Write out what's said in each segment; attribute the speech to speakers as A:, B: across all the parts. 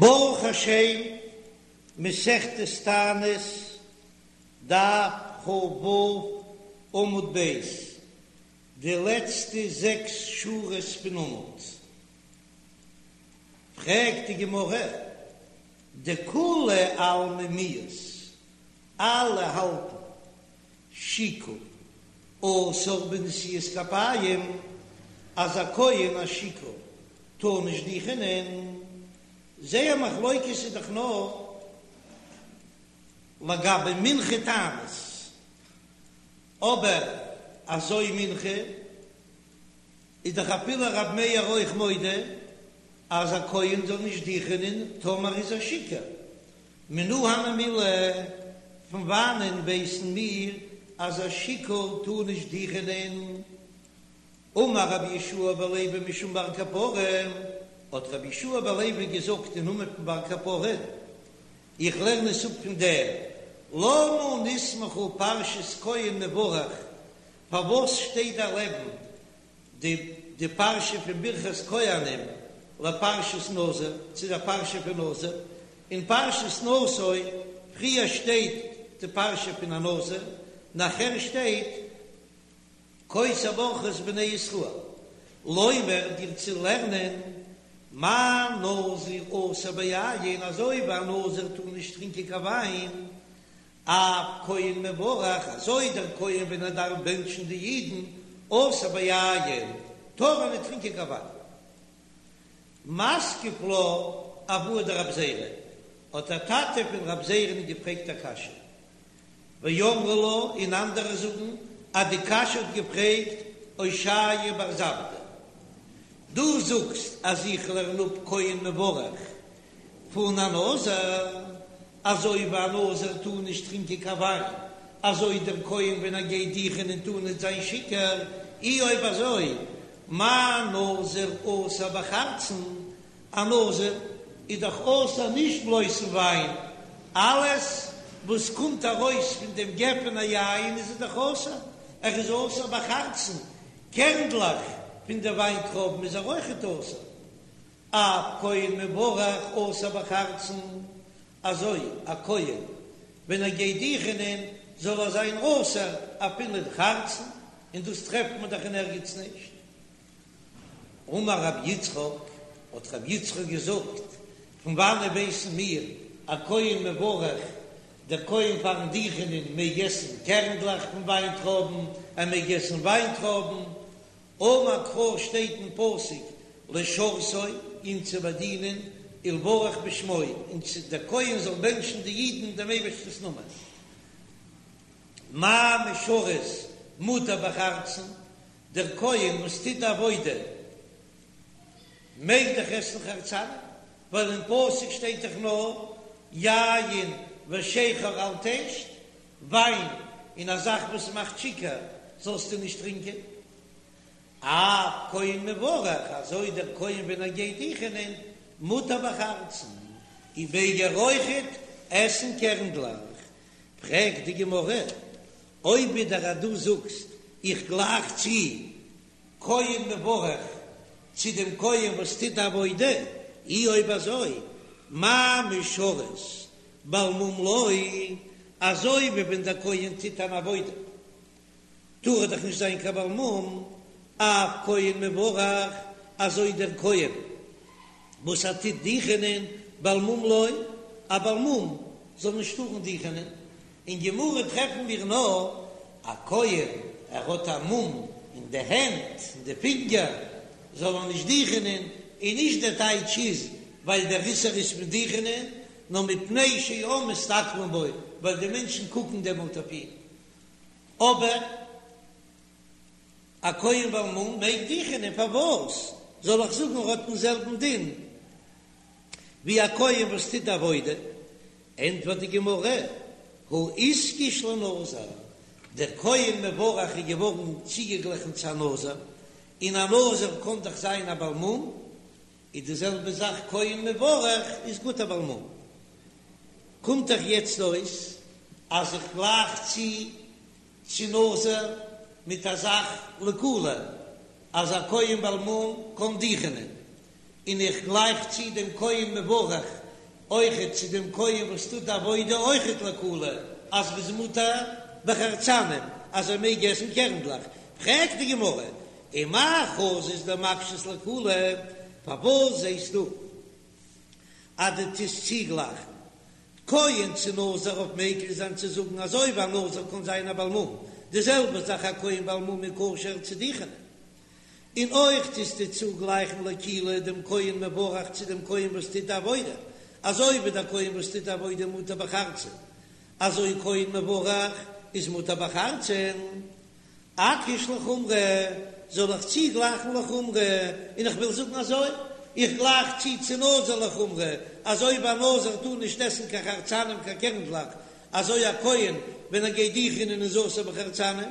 A: ברוך השם, מסכת תענית, דף כ"ו, עמוד ב', די לעצטע זעקס שורות פון עמוד. פרעגט די גמרא, דכולי עלמא מיהת, אלע האלטן שיכור אסור בנשיאת כפיים, אז א כהן א שיכור טאר נישט דיכענען, זייער מחלוקת איז דאך נאר לגבי מנחה תענית, אבער אזוי מנחה איז דאך אפילו רב מאיר אויך מודה אז א כהן זאל נישט דיכענען טאמער איז ער שיכור, מנא הני מילי, פון וואנען ווייסן מיר אז א שיכור טאר נישט דיכענען? אמר רבי יהושע בן לוי משום בר קפרא, האט רבי יהושע בן לוי געזאגט אין נאמען פון בר קפרא, איך לערן עס אפ פון דעם, למה נסמכה פרשת כהן מברך, פארוואס שטייט דא לעבן די די פרשה פון ברכת כהנים לפרשת נזיר, צו דער פרשה פון נזיר, אין פרשת נשא פריער שטייט די פרשה פון א נזיר, נאכער שטייט כה תברכו את בני ישראל, לומר דיר צו לערנען מה נזיר אסור ביין, אזוי ווי א נזיר טאר נישט טרינקען קיין וויין, אף כהן מברך, אזוי דער כהן ווען ער דארף בענטשן די אידן, אסור ביין, טאר ער ניט טרינקען קיין וויין. מתקיף לה אבוה דרב זירא, האט דער טאטע פון רב זירא'ן געפרעגט א קשיא. ואמרי לה, און אנדערע זאגן אז די קשיא האט געפרעגט אושעיא בר זבדא. דו זאגסט אז איך לערן אפ כהן מברך פון א נזיר, אזוי ווי א נזיר טאר נישט טרינקען קיין וויין, אזוי דער כהן ווען ער גייט דיכענען טאר נישט זיין שיכור, אי אויב אזוי מה נזיר אסור בחרצן, א נזיר איז דאך אסור נישט בלויז פון וויין, אלעס וואס קומט ארויס פון דעם גפן היין איז ער דאך אסור, ער איז אסור בחרצן, קערנדלעך פון די וויינטרויבן איז ער אויכעט אסור. אף כהן מברך אסור בחרצן, אזוי א כהן ווען ער גייט דיכענען זאל ער זיין אסור אפילו אין חרצן, און דאס טרעפט מען דאך אין ערגעץ נישט. אמר רבי יצחק, האט רבי יצחק געזאגט, פון וואנעט ווייסן מיר א כהן מברך, דער כהן פארן דיכענען מעג עסן קערנדלעך פון וויינטרויבן, ער מעג עסן וויינטרויבן, אמר קרא שטייט אין פסוק לשרתו אים צו באדינען ולברך בשמו און צו דער כהן זאל בענטשן די אידן דעם אייבערשטנ'ס נאמען. מה משרת מותר בחרצן, דער כהן וואס טוט די עבודה מעג דאך עסן חרצנים, ווייל אין פסוק שטייט דאך נאר יין ושכר אל תשת, וויין און א זאך וואס מאכט שיכור זאלסטו נישט טרינקען. אף כהן מברך, אזוי דער כהן ווען ער גייט דיכענען, מותר בחרצן, און מעג ער אויכעט עסן קערנדלעך. פרעגט די גמרא, אויב ווידער אז דו זאגסט איך גלייך צו כהן מברך צו דעם כהן וואס טוט די עבודה, אי אויב אזוי מה משרת בעל מום לא, אזוי ווי ווען דער כהן טוט אן עבודה טאר ער דאך נישט זיין קיין בעל מום, אף כהן מברך, אזוי דער כהן וואס ער טוט דיכענען בעל מום לא, א בעל מום זאל נישט טארן דיכענען, אין גמרא טרעפן מיר נאר א כהן ער האט א מום אין די הענט אין די פינגער זאל ער נישט דיכענען, און נישט דער טייטש איז ווייל דער איסור איז פון דיכענען, נאר מפני שהעם מסתכלין בו, ווייל די מענטשן קוקן דעמאלט אויף אים. אבער א כהן בעל מום מעג דיכענען, פארוואס זאל איך זאגן ער האט דעם זעלבן דין ווי א כהן וואס טוט עבודה? ענטפערט די גמרא, הא איתקש לנזיר, דער כהן מברך איז געווארן צוגעגליכן צו א נזיר, און א נזיר קען דאך זיין א בעל מום, איז די זעלבע זאך כהן מברך איז גוט א בעל מום. קומט דאך יעצט אויס אז איך גלייך צו צו נזיר מיט א זאך לקולא אז א כהן בעל מום קען דיכענען, און איך גלייך צו דעם כהן מברך. אויכעט צו דעם כהן וואס טוט די עבודה אויכעט לקולא אז ר'איז מותר בחרצנים אז ער מעג עסן קערנדלעך, פרעגט די גמרא, ומאי חזית דמקשת לקולא, פארוואס זעסטו אז דו טוסט צוגלייכן כהן צו נזיר אויף מקיל זיין צו זאגן אזוי ווי א נזיר קען זיין א בעל מום, די זעלבע זאך א כהן בעל מום איז כשר צו דוכענען. און אויך טוסטו צוגלייכן לקולא דעם כהן מברך צו דעם כהן וואס טוט די עבודה, אזוי ווי דער כהן וואס טוט די עבודה מותר בחרצן, אזוי כהן מברך איז מותר בחרצן. אקיש לחומרא, זאל איך צוגלייכן לחומרא, און איך וויל זאגן אזוי, איך גלייך צו צו נזיר לחומרא, אזוי ווי א נזיר טאר נישט עסן קיין חרצנים קיין קערנדלעך, אזוי א כהן ווען ער גייט דוכענען איז אסור בחרצנים,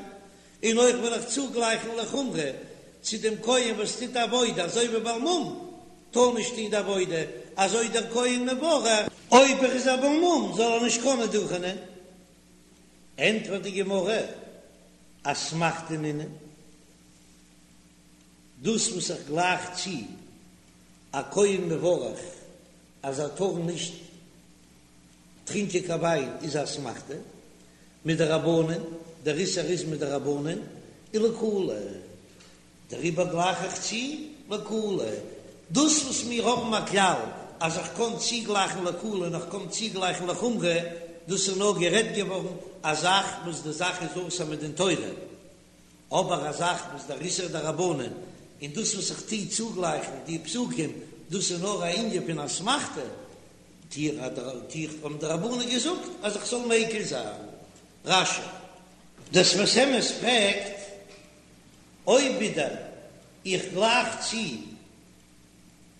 A: און אויך וויל איך צוגלייכן לחומרא צו דעם כהן וואס טוט עבודה, אזוי ווי בעל מום טאר נישט טון די עבודה, אזוי דער כהן מברך, אויב ער איז א בעל מום זאל ער נישט קענען דוכענען. ענטפערט די גמרא, אסמכתא נינהו, דאס וואס איך גלייך צו א כהן מברך אז ער טאר נישט טרינקען קיין וויין איז א אסמכתא מדרבנן, דער איסור איז מדרבנן, ולקולא, דעריבער גלייך איך צו לקולא, דאס וואס מיר האבן א כלל אז איך קען צוגלייכן לקולא און איך קען צוגלייכן לחומרא, דאס איז נאר גערעדט געווארן א זאך וואס די זאך איז אסור מדין תורה, אבער א זאך וואס דער איסור דרבנן און דאס וואס איך טו צוגלייכן די פסוקים, דאס איז נאר א ענין פון אסמכתא, טו איך האבן די רבנן געזאגט אז איך זאל מיקל זיין. רש"י. דער שפת אמת פרעגט אויב ווידער איך גלייך צו,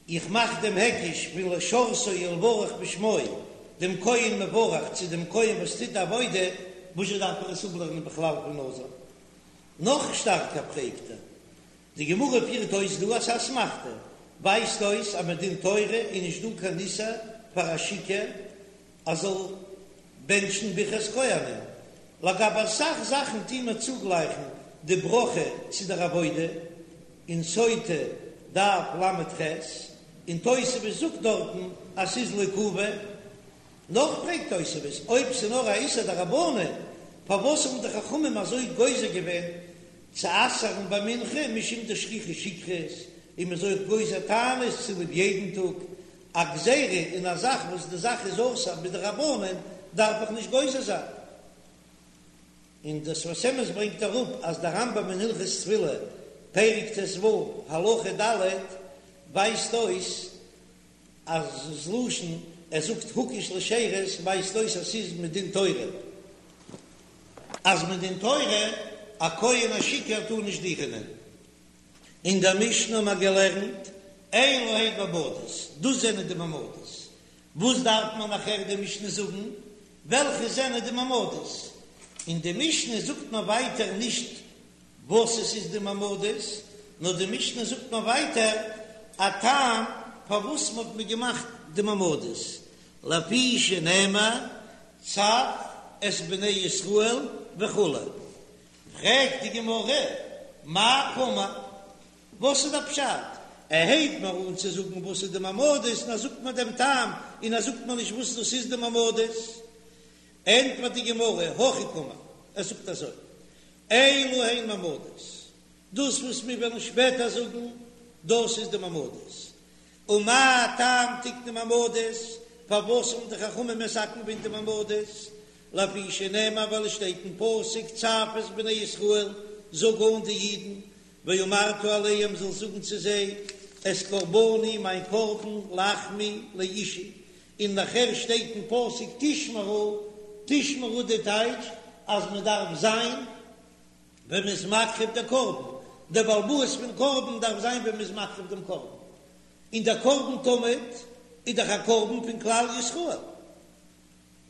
A: איך מאך דעם היקש פון לשרתו ולברך בשמו, דעם כהן מברך צו דעם כהן וואס טוט די עבודה, וואזשע דארף איך עס אפלערנען בכלל פון נזיר? נאך שטארקער פרעגט ער, די גמרא פירט אויס דא אז אסמכתא ווייזט אויס אז מדין תורה איז נישט דא קיין איסור פאר א שיכור אז זאל בענטשן ברכת כהנים, לגבי אסאך זאכן טוהן מיר צוגלייכן די ברכה צו דער עבודה, אין סוטה דף ל"ח, און תוספות זאגט דארטן אז ס'איז לעיכובא. נאך פרעגט תוספות, אויב ס'איז נאר א איסור דרבנן, פארוואס האבן די חכמים אזוי גוזר געווען צו אסר'ן ביי מנחה משום דשכיחא שכרות, און מ'איז אויך גוזר תענית צוליב יעדן טאג, א גזירה אין א זאך וואס די זאך איז אסור מדרבנן דארף איך נישט גוזר זיין. און דער שפת אמת ברענגט אראפ אז דער רמב"ם אין הלכות תפילה פרק ט"ו הלכה ד' ווייזט אויס אז ס'לשון ער זאגט הוקש לשירות ווייזט אויס אז ס'איז מדין תורה אז מדין תורה א כהן א שיכור טאר נישט דוכענען. אין דער משנה האבן מיר געלערנט אלו הן מעמדות, דאס זענען די מעמדות. וואס דארף מען נאכער די משנה זאגן וועלכע זענען די מעמדות? אין די משנה זאגט מען ווייטער נישט וואס עס איז די מעמדות, נאר די משנה זאגט מען ווייטער א טעם פארוואס מען האט מען געמאכט די מעמדות, לפי שנאמר צו את בני ישראל וכו'. פרעגט די גמרא, מאי קאמר? וואס איז דער פשט? ער הייבט מיר אן צו זאגן וואס איז די מעמדות און ער זאגט מיר דעם טעם און ער זאגט מיר נישט וואס דאס איז די מעמדות. ענטפערט די גמרא, הכי קאמר, ער זאגט אזוי, אלו הן מעמדות, דאס וואס מיר וועלן שפעטער זאגן, דאס איז די מעמדות. ומה טעם תקנו מעמדות, פארוואס האבן די חכמים מתקן געווען די מעמדות? לפי שנאמר ווייל עס שטייט אין פסוק צו את בני ישראל, זאג אן די אידן, ואמרת אליהם זאלסט זאגן צו זיי, את קרבני מיין קרבן לחמי לאשי, און נאכער שטייט אין פסוק תשמרו, תשמרו די טייטש אז מען דארף זיין ווען מען איז מקריב די קרבן, דער בעל הבית פון קרבן דארף זיין ווען מען איז מקריב דעם קרבן, און דער קרבן תמיד איז דאך א קרבן פון כלל ישראל.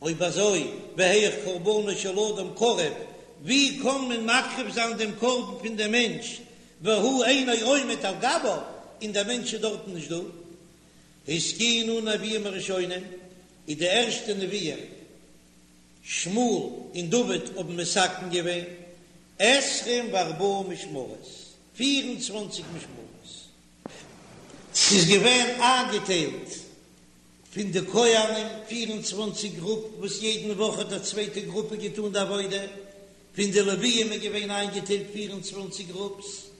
A: אויב אזוי, והיאך קרבנו של אדם קרב, ווי קען מען מקריב זיין דעם קרבן פון דעם מענטש, והוא אינו עומד על גביו, און דער מענטש איז דארטן נישט דא? התקינו נביאים הראשונים, איז די ערשטע נביאים שמואל און דוד האבן מתקן געווען עשרים וארבעה משמרות, פיר און צוואנציג משמרות. ס'איז געווען איינגעטיילט. פון די כהנים 24 גרופ וואס יעדן וואך האט א צווייטע גרופע געטאן די עבודה, פון די לוויים איז געווען איינגעטיילט 24 גרופס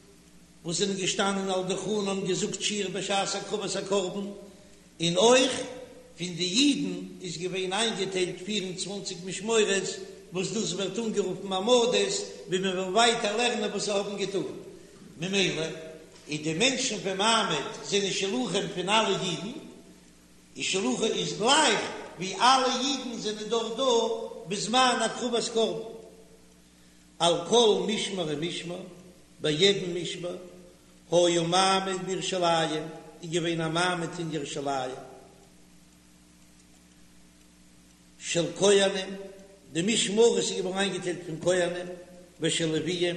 A: וואס זענען געשטאנען על דוכנן און געזאגט שיר בשעת הקרבת הקרבן, און אויך פון די אידן איז געווען איינגעטיילט 24 משמורות וואס דאס ווערט אנגערופן מעמדות, ווי מען וועל ווייטער לערנען וואס זיי האבן געטאן. ממילא איז די מענטשן פון מעמד זענען שלוחים פון אלע אידן, און שלוחי איז גלייך ווי אלע אידן זענען דארט דא בזמן הקרבת קרבן. על כל משמר ומשמר, ביי יעדן משמר, היה מעמד בירושלים, איז געווען א מעמד אין ירושלים של כהנים, די משמרות איז געווארן איינגעטיילט פון כהנים ושל לוויים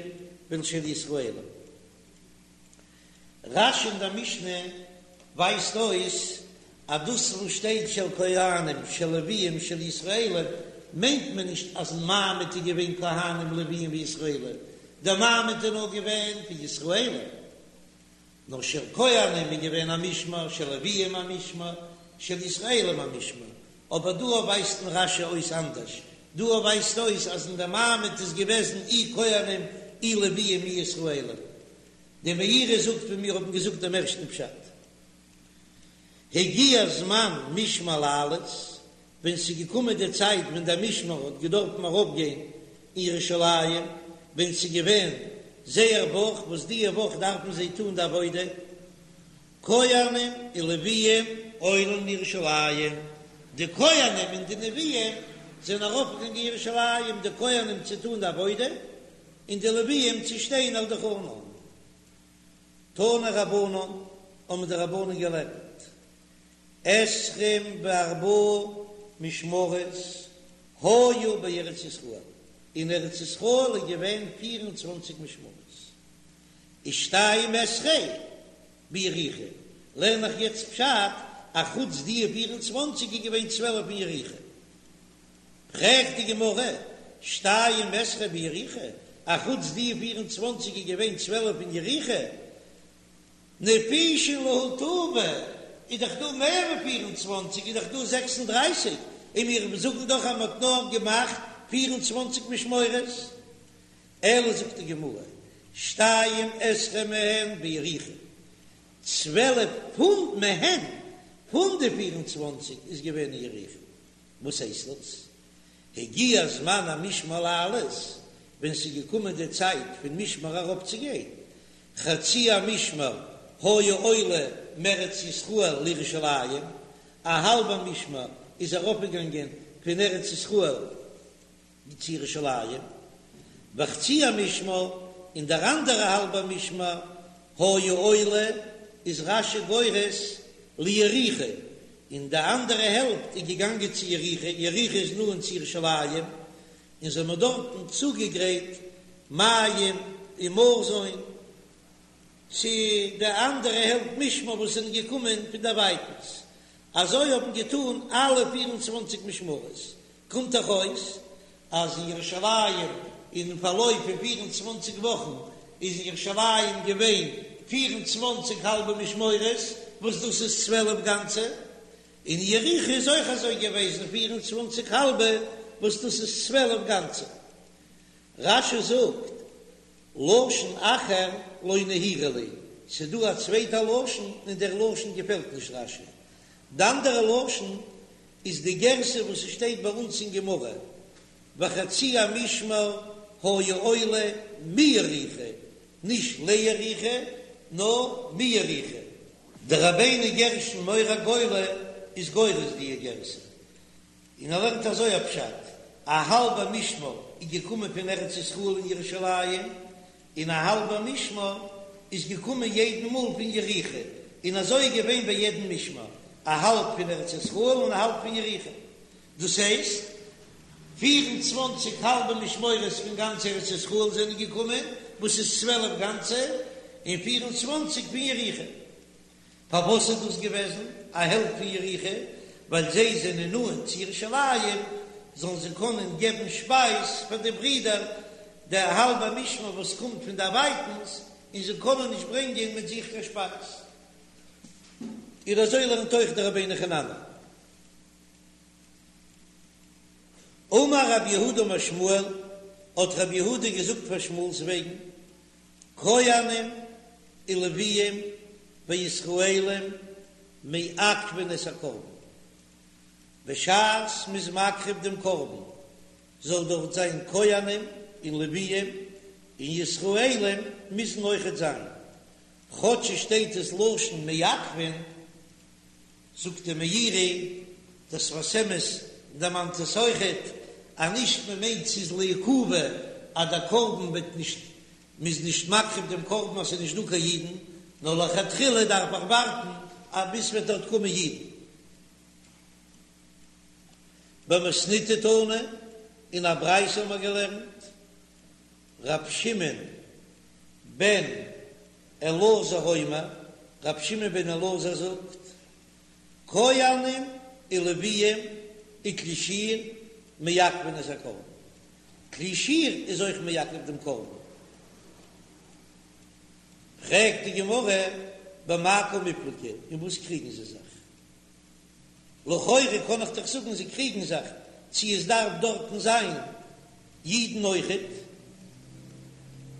A: ושל ישראלים. רש"י אין דער משנה ווייזט אויס אז דאס וואס שטייט של כהנים של לוויים של ישראלים מיינט מען נישט אז אין מעמד איז געווען כהנים לוויים וישראלים, דער מעמד איז נאר געווען פון ישראלים, נאר של כהנים איז געווען א משמר, של לוויים א משמר, של ישראלים א משמר, אבער דא ווייזט אין רש"י אויס אנדערש, דא ווייזט אויס אז אין דער מעמד איז געוועזן אי כהנים אי לוויים אי ישראלים. די מאירי זאגט ווי מיר האבן געזאגט דעם ערשטן פשט. הגיע זמן משמר לעלות, ווען ס'איז געקומען די צייט ווען דער משמר האט געדארפן ארויפגיין אין ירושלים, ווען ס'איז געווען זייער וואך, וואס דיע וואך דארפן זיי טון די עבודה, כהנים ולוויים עולין לירושלים, די כהנים און די לוויים זענען ארויפגעגאנגען אין ירושלים, די כהנים צו טון די עבודה, און די לוויים צו שטיין על דוכנן. תנו רבנן, האבן די רבנן געלערנט, עשרים וארבעה משמרות היו בארץ ישראל, אין ארץ ישראל איז געווען פיר און צוואנציג משמרות, ושתים עשרה ביריחו, לערן איך יעצט פשט, א חוץ די פיר און צוואנציג איז געווען צוועלף אין יריחו. פרעגט די גמרא, שתים עשרה ביריחו, א חוץ די פיר און צוואנציג איז געווען צוועלף אין יריחו, נפישין להו טובא, איז דאך דא מער ווי פיר און צוואנציג, איז דאך דא זעקס און דרייסיג, און מיר זאגן דאך אז מען האט נאר געמאכט פיר און צוואנציג משמורות. אלא זאגט די גמרא, שתים עשרה מהן ביריחו, צוועלף פון מהן, פון די פיר און צוואנציג איז געווען אין יריחו. וואס הייסט דאס? הגיע זמן המשמר לעלות, ווען ס'איז געקומען די צייט פון משמר ארויפצוגיין, חצי המשמר היה עולה מארץ ישראל לירושלים, א האלבע משמר איז ארויפגעגאנגען פון ארץ ישראל צו ירושלים, וחצי המשמר, און דער אנדערע האלבע משמר היה עולה, איז רש"י גורס ליריחו, און די אנדערע העלפט איז געגאנגען צו יריחו, יריחו איז נאנט צו ירושלים, און זיי האבן דארטן צוגעגרייט מים און מזון צו די אנדערע העלפט משמר וואס זענען געקומען פון דערווייטנס, אזוי האבן געטאן אלע פיר און צוואנציג משמרות, קומט דאך אויס אז אין ירושלים אין פארלויף פון פיר און צוואנציג וואכן איז אין ירושלים געווען פיר און צוואנציג האלבע משמרות, וואס דאס איז צוועלף גאנצע, און אין יריחו איז אויך אזוי געוועזן פיר און צוואנציג האלבע, וואס דאס איז צוועלף גאנצע. רש"י זאגט, לשון אחר לא נהירא לי, ס'דא א צווייטע לשון און דער לשון געפעלט נישט רש"י. די אנדערע לשון איז די גירסא וואס ס'שטייט ביי אונז אין גמרא, וחצי המשמר היה עולה מיריחו, נישט ליריחו, נאר מיריחו. דער רבינו גרשון מאור הגולה איז גורס די גירסא, און ער לערנט אזוי א פשט, א האלבע משמר איז געקומען פון ארץ ישראל אין ירושלים, און א האלבע משמר איז געקומען יעדן מאל פון יריחו, און אזוי איז געווען ביי יעדן משמר, א האלב פון ארץ ישראל און א האלב פון יריחו, דאס הייסט, פיר און צוואנציג האלבע משמרות פון גאנץ ארץ ישראל זענען געקומען, וואס איז צוועלף גאנצע, און פיר און צוואנציג פון יריחו. פארוואס איז דאס געוועזן א העלפט פון יריחו? ווייל זיי זענען נאנט צו ירושלים, זאלן זיי קענען געבן שפייז פאר די ברידער, די האלבע משמר וואס קומט פון דערווייטנס, און זיי קענען נישט ברענגען מיט זיך קיין שפייז. און אזוי לערנט אויך דער רבינו חננאל. אמר רב יהודה אמר שמואל, האט רב יהודה געזאגט פאר שמואל'ס וועגן, כהנים ולוויים וישראלים מעכבין את הקרבן, בשעת מ'איז מקריב דעם קרבן זאל דארט זיין כהנים און לוויים און ישראלים מוזן אויכעט זיין, כאטש עס שטייט עס לשון מעכבין, זאגט דער מאירי, דער שפת אמת דערמאנט עס אויכעט, אז נישט מען מיינט ס'איז לעיכובא אז דער קרבן וועט נישט, מ'איז נישט מקריב דעם קרבן אז ס'איז נישט דא קיין אידן, נאר לכתחילה דארף איך ווארטן אז ביז ס'וועט דארט קומען אידן. במתניתא תנא, אין א ברייתא האבן מיר געלערנט, ר' שמעון בן אלעזר אומר, ר' שמעון בן אלעזר זאגט, כהנים ולוויים וכלי שיר מעכבין את הקרבן, כלי שיר איז אויך מעכב דעם קרבן. פרעגט די גמרא, במאי קמיפלגי, אין וואס קריגן זיי זיך? לכאורה קען איך דאך זאגן זיי קריגן זיך צו עס דארף דארטן זיין אידן אויכעט,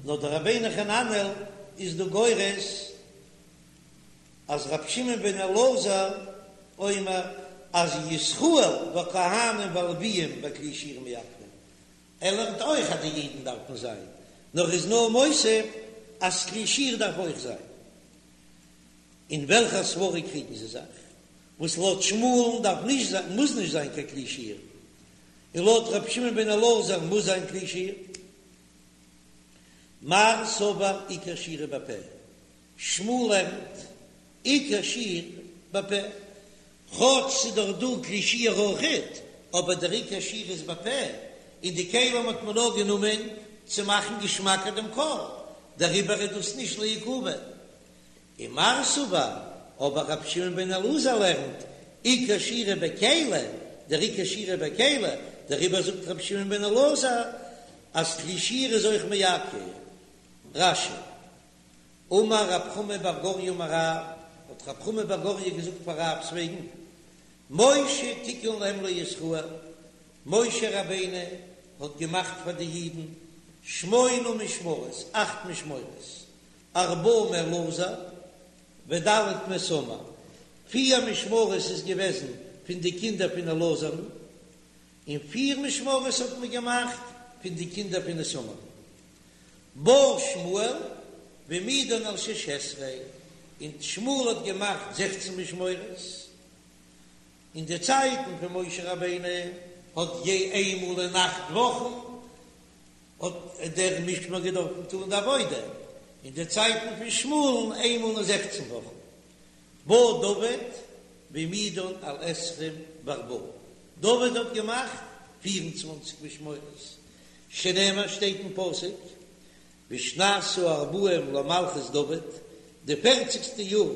A: נאר דער רבינו חננאל איז דא גורס אז רבי שמעון בן אלעזר אומר אז ישראל והכהנים והלוויים וכלי שיר מעכבין, ער לערנט אויך אז די אידן דארפן זיין, נאר איז נאר מוסיף אז כלי שיר דארף אויך זיין. אין וועלכע סברא קריגן זיי זיך? וואס לויט שמואל'ן דארף נישט זיין, מוז נישט זיין קיין כלי שיר, און לויט רבי שמעון בן אלעזר מוז זיין כלי שיר. מר סבר עיקר שירה בפה, שמואל לערנט עיקר שיר בפה, כאטש ס'איז דאך דא כלי שיר אויכעט, אבער דער עיקר שיר איז בפה, און די כלים האט מען נאר גענומען צו מאכן געשמאקער דעם קול, דעריבער איז דאס נישט לעיכובא. ומר סבר, אבער רבי שמעון בן אלעזר לערנט, עיקר שירה בכלי, דער עיקר שירה בכלי, דעריבער זאגט רבי שמעון בן אלעזר אז כלי שיר איז אויך מעכב. רש"י, אמר רב חמא בר גוריא אמר רב, האט רב חמא בר גוריא געזאגט פאר רב'ס וועגן, משה תיקן להם לישראל, משה רבינו האט געמאכט פאר די אידן שמונה משמרות, אכט משמרות, ארבעה מאלעזר וד' מאיתמר, פיר משמרות איז געוועזן פון די קינדער פון אלעזר'ן, און פיר משמרות האט מען געמאכט פון די קינדער פון איתמר. בא שמואל והעמידן על שש עשרה, און שמואל האט געמאכט זעכצן משמרות. אין די צייטן פון משה רבינו האט יע איינמאל אין אכט וואכן האט דער משמר געדארפן טאן די עבודה, אין די צייטן פון שמואל'ן איינמאל אין זעכצן וואכן. בא דוד והעמידן על עשרים וארבעה, דוד האט געמאכט פיר און צוואנציג משמרות, שנאמר שטייט אין פסוק, בשנת הארבעים למלכות דוד, די פערציגסטע יאר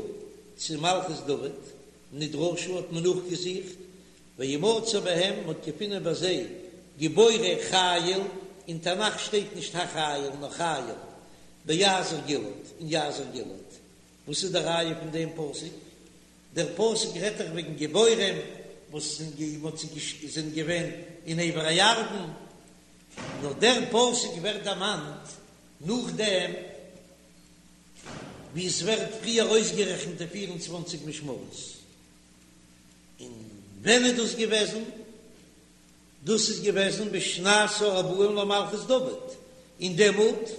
A: צו מלכות דוד, נדרשו האט מען נאכגעזוכט וימצא בהם, מ'האט געפונען ביי זיי גיבורי חיל, אין תנך שטייט נישט החיל נאר חיל, ביעזר גלעד, אין יעזר גלעד. וואס איז די ראיה פון דעם פסוק? דער פסוק רעדט דאך וועגן גיבורים וואס זענען געווען אין עבר הירדן, נאר דער פסוק ווערט דערמאנט נאכדעם ווי עס ווערט פריער אויסגערעכנט די פיר און צוואנציג משמרות. און ווען איז דאס געוועזן? דאס איז געוועזן בשנת הארבעים למלכות דוד, און דעמאלט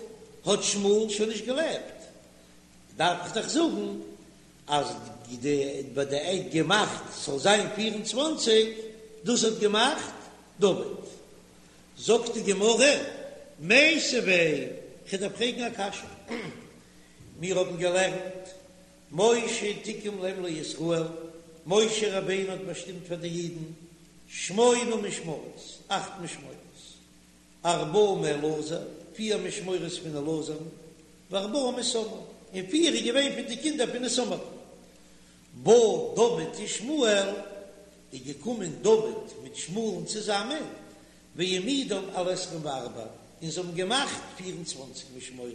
A: האט שמואל שוין נישט געלעבט, דארף איך דאך זאגן אז די ביי די עד געמאכט ס'זאל זיין 24, דאס האט געמאכט דוד. זאגט די גמרא, מיתיבי, כ'דארף פרעגן א קשיא, מיר האבן געלערנט משה תיקן להם לישראל, משה רבינו האט באשטימט פאר די אידן שמונה משמרות, אכט משמרות, ארבעה מאלעזר, פיר משמרות פון אלעזר'ן, וארבעה מאיתמר, און פיר איז געווען פון די קינדער פון איתמר. בא דוד ושמואל, איז געקומען דוד מיט שמואל'ן צוזאמען, והעמידן על עשרים וארבע, און זיי האבן געמאכט פיר און צוואנציג משמרות,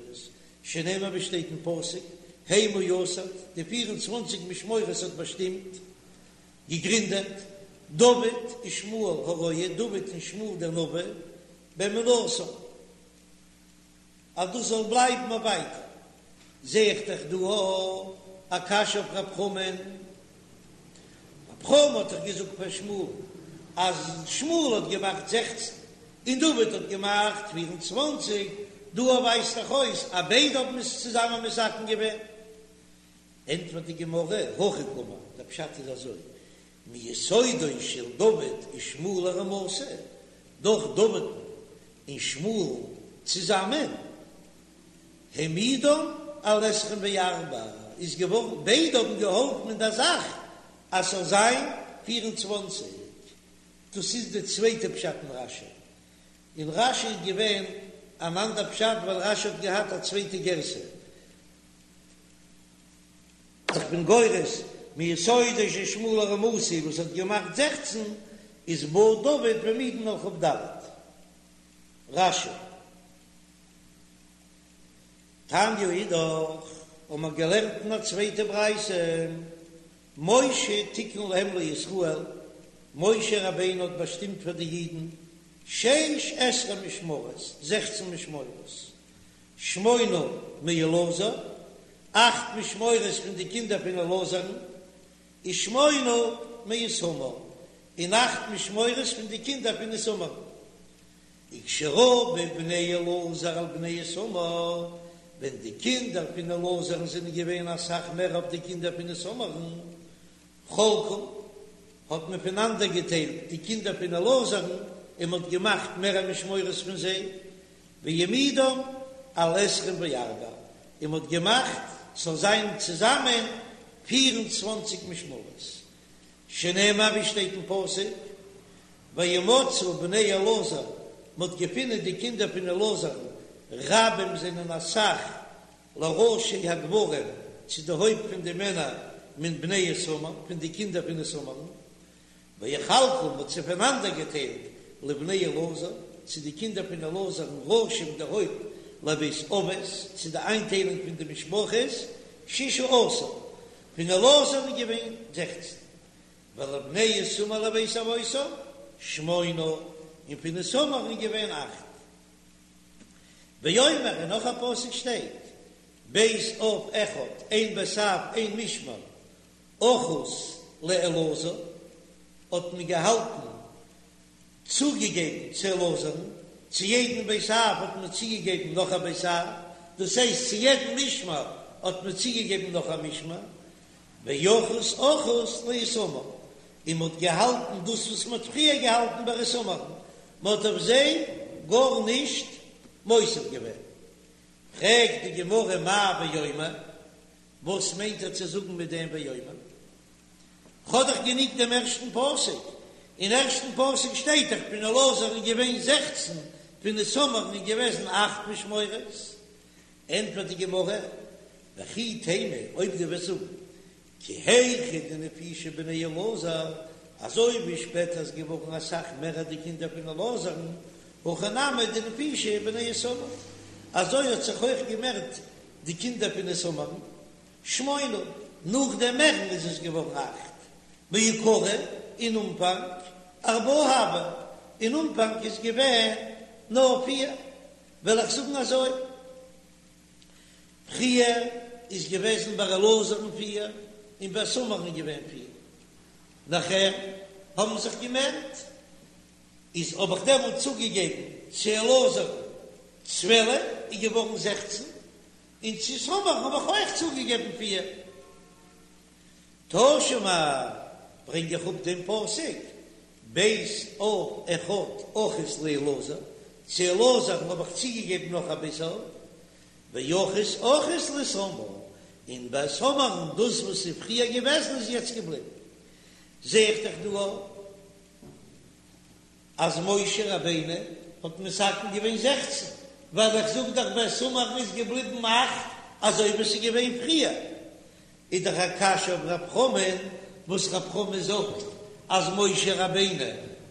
A: שנאמר ווי שטייט אין פסוק, המה יסד, די פיר און צוואנציג משמרות האט באשטימט, געגרינדעט, דוד ושמואל הרואה, דוד און שמואל דער נביא, באמונתם, אז דאס זאל בלייבן אויף ווייטער. זע איך דאך דא א קשיא אויף רב חמא'ן, רב חמא האט דאך געזאגט פאר שמואל אז שמואל האט געמאכט זעכצן און דוד האט געמאכט פיר און צוואנציג, דא ווייזט דאך אויס אז ביידע האבן עס צוזאמען מתקן געווען. ענטפערט די גמרא, הכי קאמר, דער פשט איז אזוי, מיסודו של דוד ושמואל הרמתי, דורך דוד'ן און שמואל'ן צוזאמען, העמידן על עשרים וארבע, איז געווארן, ביידע האבן געהאלפן אין דער זאך אז ס'זאל זיין פיר און צוואנציג. דאס איז די צווייטע פשט אין רש"י. אין רש"י איז געווען אן אנדער פשט ווייל רש"י האט געהאט א צווייטע גירסא. איך בין גורס מיסודו של שמואל הרמתי וואס האט געמאכט זעכצן איז בא דוד והעמידן על כ"ד. רש"י. תניא אידך, האבן מיר געלערנט אין א צווייטע ברייתא, משה תיקן להם לישראל, משה רבינו האט באשטימט פאר די אידן שש עשרה משמרות, זעכצן משמרות, שמונה מאלעזר, אכט משמרות פון די קינדער פון אלעזר'ן, ושמונה מאיתמר, און אכט משמרות פון די קינדער פון איתמר'ן. וכשרבו בני אלעזר על בני איתמר, ווען די קינדער פון אלעזר'ן זענען געווען אסאך מער אויף די קינדער פון איתמר'ן, חלקום, האט מען פונאנדערגעטיילט די קינדער פון אלעזר'ן און מען האט געמאכט מער משמרות פון זיי, והעמידן על עשרים וארבע, און מען האט געמאכט ס'זאל זיין צוזאמען פיר און צוואנציג משמרות, שנאמר ווי שטייט אין פסוק, וימצאו בני אלעזר, מען האט געפונען די קינדער פון אלעזר'ן, רבים זענען אסאך, לראשי הגברים, צו די הויפט פון די מענער, מן בני איתמר, פון די קינדער פון איתמר'ן, ויחלקום, מען האט זיי פונאנדערגעטיילט, לבני אלעזר, צו די קינדער פון אלעזר'ן, ראשים די הויפט, לבית אבות, צו די איינטיילונג פון די משפחות, ששה עשר, פון אלעזר'ן איז געווען זעכצן. ולבני איתמר לבית אבותם שמונה, און פון איתמר'ן איז געווען אכט. ואומר, און נאך א פסוק שטייט, בית אב אחד, איין בית אב, איין משמר, אחוז לאלעזר, האט מען געהאלטן צוגעגעבן צו אלעזר'ן, צו יעדן בית אב האט מען צוגעגעבן נאך א בית אב, דאס הייסט צו יעדן משמר האט מען צוגעגעבן נאך א משמר, ואחוז אחוז לאיתמר, און מען האט געהאלטן דאס וואס מען האט פריער געהאלטן ביי איתמר'ן, מען האט אויף זיי גארנישט מוסיף געווען. פרעגט די גמרא מאי ואומר, וואס מיינט ער צו זאגן מיט דעם ואומר? כ'האב דאך גענוג דעם ערשטן פסוק, אין ערשטן פסוק שטייט דאך פון אלעזר איז געווען זעכצן, פון איתמר'ן איז געוועזן אכט משמרות. ענטפערט די גמרא, וכי תימא, אויב דו וועסט זאגן, כי היכי דנפישי בני אלעזר, אזוי ווי שפעטער איז געווארן אסאך מער די קינדער פון אלעזר'ן, הכי נמי דנפישי בני איתמר, אזוי האט זיך אויך געמערט די קינדער פון איתמר'ן, שמונה, נאך דעם מערן איז עס געווארן אכט, מעיקרא אין אנפאנג, ארבעה הוו, אין אנפאנג איז געווען נאר פיר, וועל איך זאגן אזוי, פריער איז געוועזן ביי אלעזר'ן פיר, און ביי איתמר'ן איז געווען פיר, נאכער האבן זיך געמערט, איז האב איך דעמאלט צוגעגעבן צו אלעזר'ן צוועלף, איז געווארן זעכצן, און צו איתמר'ן האב איך אויך צוגעגעבן פיר. תא שמע, ברענג איך אפ דעם פסוק, בית אב אחד אחוז לאלעזר, צו אלעזר'ן האב איך צוגעגעבן נאך א בית אב, ואחוז אחוז לאיתמר, און ביי איתמר'ן דאס וואס איז פריער געוועזן איז יעצט געבליבן. זע איך דאך דא אויך אז משה רבינו האט מתקן געווען זעכצן, ווייל איך זאג דאך ביי איתמר'ן איז געבליבן אכט אזוי ווי עס איז געווען פריער, איז דאך א קשיא אויף רב חמא'ן וואס רב חמא זאגט אז משה רבינו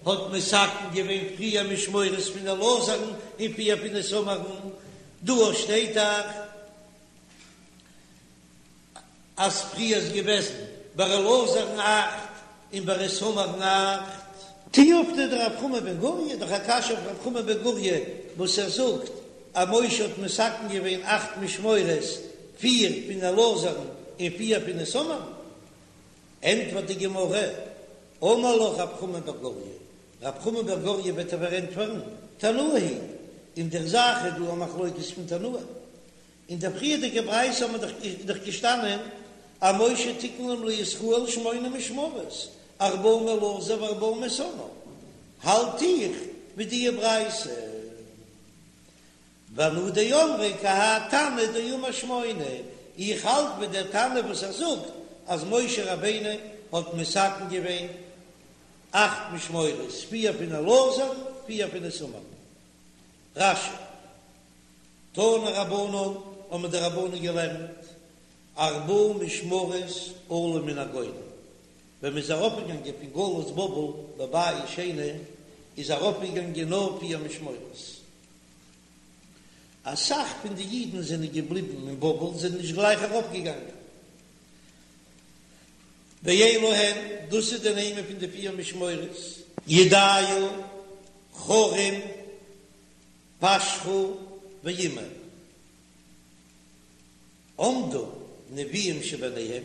A: האט מתקן געווען פריער משמורות פון אלעזר'ן און פריער פון איתמר'ן, דא שטייט דאך אז פריער איז געוועזן ביי אלעזר'ן אכט. און ביי איתמר'ן אכט. תיובתא דרב חמא בן גוריא, דאך א קשיא אויף רב חמא בן גוריא וואס ער זאגט אז משה האט מתקן געווען אכט משמרות, פיר פון אלעזר'ן און פיר פון איתמר'ן. ענטפערט די גמרא, אמר לך רב חמא בר גוריא, רב חמא בר גוריא וועט דיר פארענטפערן, תנאי היא, אין דער זאך איז דא א מחלוקת פון תנאים. אין דער פריערדיגער ברייתא האט מען דאך געשטאנען אז משה תיקן להם לישראל שמונה משמרות, ארבעה מאלעזר וארבעה מאיתמר, האלט איך מיט די ברייתא. ואנא דאמרי כי האי תנא דאמר שמונה, איך האלט מיט דער תנא וואס ער זאגט אז משה רבינו האט מתקן געווען אכט משמרות, פיר פון אלעזר, פיר פון איתמר. רש"י. תנו רבנן, האבן די רבנן געלערנט, ארבעה משמרות עלו מן הגולה, ווען מ'איז ארויפגעגאנגען פון גלות בבל בבית שני, איז ארויפגעגאנגען נאר פיר משמרות. אסאך פון די אידן זענען געבליבן אין בבל, זענען נישט גלייך ארויפגעגאנגען. ואלו הן, דאס איז די נעמען פון די פיר משמרות, ידעיה, חרים, פשחור ואימר. עמדו נביאים שביניהם,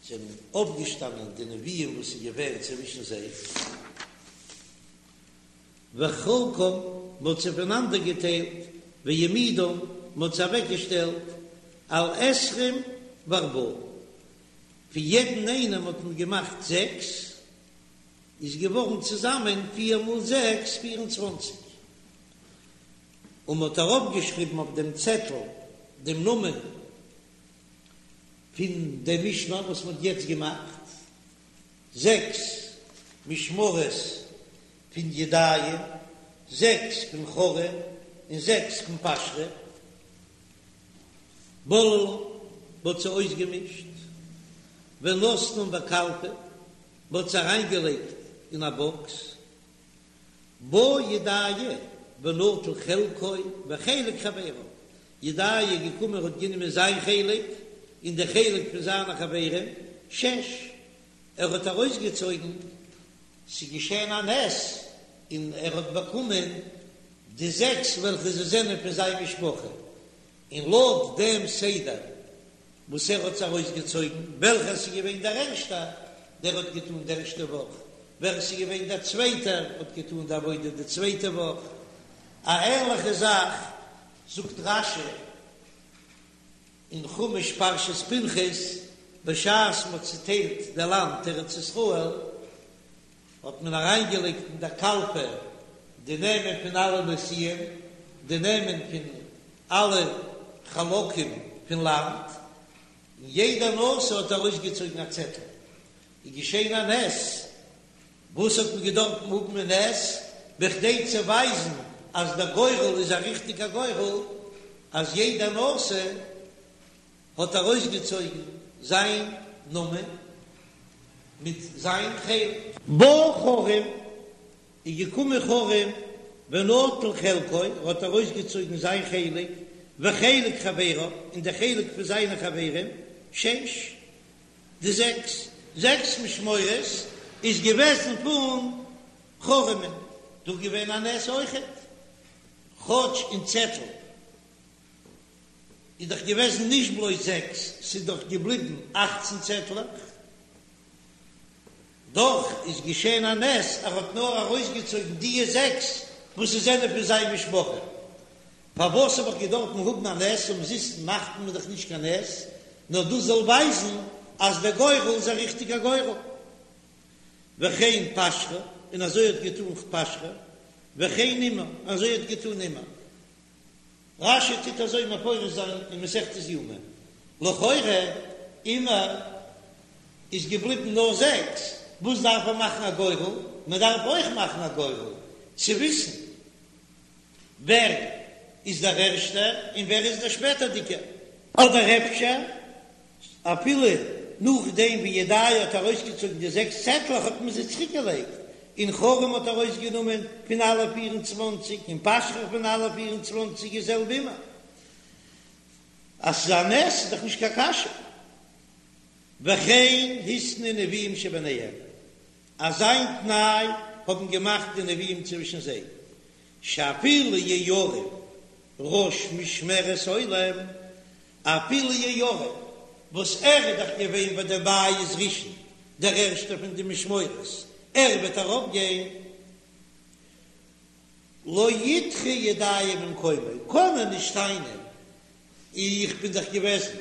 A: זענען אויפגעשטאנען די נביאים וואס איז געווען צווישן זיי, וחלקם, מען האט זיי פונאנדער געטיילט, והעמידם, מען האט זיי אוועקגעשטעלט, על עשרים וארבעה, פון יעדן איינעם האט מען געמאכט זעקס, איז געווארן צוזאמען פיר מאל זעקס פיר און צוואנציג, און מען האט ארויפגעשריבן אויף דעם צעטל דעם נאמען פון דעם משמר וואס מען האט יעצט געמאכט, זעקס משמרות פון ידעיה, זעקס פון חרים, און זעקס פון פשחור. בללום, מען האט זיי אויסגעמישט, ונתנום בקלפי, מען האט זיי אריינגעלייגט אין א באקס, בא ידעיה ונטל חלקו וחלק חבריו, ידעיה איז געקומען האט גענומען זיין חלק און די חלק פון זיינע חברים, שש, ער האט ארויסגעצויגן, ס'איז געשען א נס און ער האט באקומען די זעקס וועלכע זיי זענען פון זיין משפחה, און לויט דעם סדר וואס ער האט עס ארויסגעצויגן, וועלכער ס'איז געווען דער ערשטער, דער האט געטאן די ערשטע וואך, ווער עס איז געווען דער צווייטער האט געטאן די עבודה די צווייטע וואך. א ענליכע זאך זאגט רש"י אין חומש פרשת פנחס, בשעת מ'האט צוטיילט די לאנד ארץ ישראל, האט מען אריינגעלייגט אין דער קלפי די נעמען פון אלע נשיאים, די נעמען פון אלע חלקים פון לאנד, און יעדער נשיא האט ארויסגעצויגן א צעטל, איז געשען א נס, וואס האט מען געדארפט האבן א נס, בכדי צו ווייזן אז דער גורל איז א ריכטיגער גורל, אז יעדער נשיא האט ארויסגעצויגן זיין נאמען מיט זיין חלק. בא חרים, איז געקומען חרים ונטל חלקו, ער האט ארויסגעצויגן זיין חלק, וחלק חבריו, און די חלק פון זיינע חברים, שש, די זעקס, זעקס משמרות איז געוועזן פון חרים'ן, דא געווען א נס אויכעט, כאטש אין צעטל איז דאך געוועזן נישט בלויז זעקס, ס'איז דאך געבליבן אכצן צעטלעך, דאך איז געשען א נס, ער האט נאר ארויסגעצויגן דיע זעקס וואס עס זענען פון זיין משפחה. פארוואס האב איך געדארפן האבן א נס? אומזיסט מאכט מען דאך נישט קיין נס, נאר דאס זאל ווייזן אז דער גורל איז א ריכטיגער גורל. וכן פשחור, און אזוי האט געטאן פשחור, וכן אימר, אזוי האט געטאן אימר. רש"י טוט אזוי מפרש זיין אין מסכת יומא, לכאורה אימר איז געבליבן נאר זעקס, וואס דארף מען מאכן א גורל? מען דארף אויך מאכן א גורל צו וויסן ווער איז דער ערשטער און ווער איז דער שפעטערדיגער. אדער אפשר אפילו נאכדעם ווי ידעיה האט ארויסגעצויגן די זעקס צעטלעך האט מען זיי צוריק געלייגט, און חרים האט ארויסגענומען פון אלע פיר און צוואנציג און פשחור פון אלע פיר און צוואנציג די זעלבע אימר. אז ס'איז א נס איז דאך נישט קיין קשיא. וכן התנו נביאים שביניהם. אזא תנאי האבן געמאכט די נביאים צווישן זיי, שאפילו יהויריב ראש משמרת עולם, אפילו יהויריב וואס ער איז דאך געווען ביי די בית ראשון דער ערשטער פון די משמורות, ער וועט ארויפגיין, לא ידחה ידעיה ממקומו, קען ער נישט טענה'ן, איך בין דאך געוועזן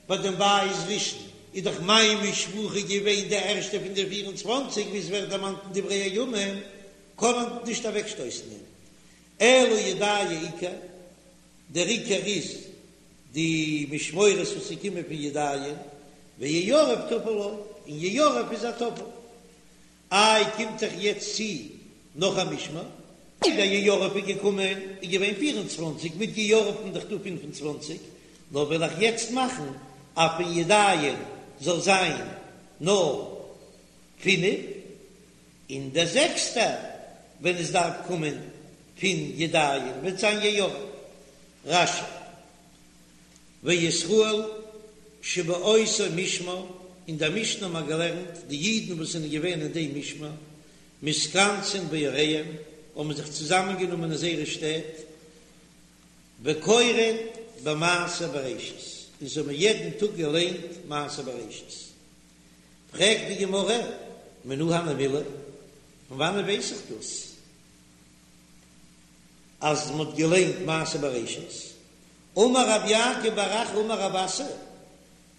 A: ביי דעם בית ראשון, איז דאך מיין משפחה געווען די ערשטע פון די פיר און צוואנציג, ווי עס ווערט דערמאנט אין דברי הימים, קען מען נישט אוועקשטויסן אים, אלא ידעיה עיקר, דער עיקר איז די משמורות וואס איז געקומען פון ידעיה, ויהויריב טפל לו, און יהויריב איז א טפל. איי קומט דאך יעצט צו נאך א משמר? איידער יהויריב איז געקומען איז געווען 24, מיט יהויריב'ן דאך דא 25, נאר וועל איך יעצט מאכן אז פון ידעיה זאל זיין נאר פינף, און דער זעקסטער ווען עס דארף קומען פון ידעיה וועט זיין יהויריב. רש"י. וישראל שבאותו משמר, אין דער משנה האט מען געלערנט, די אידן וואס זענען געווען אין דעם משמר, מתכנסין בעריהם, האבן זיך צוזאמענגענומען אין זייערע שטעט, וקורין במעשה בראשית, און זיי האבן יעדן טאג געליינט מעשה בראשית. פרעגט די גמרא, מנא הני מילי, פון וואנען ווייס איך דאס אז מען האט געליינט מעשה בראשית? אמר רב יעקב בר אחא אמר רב אסי,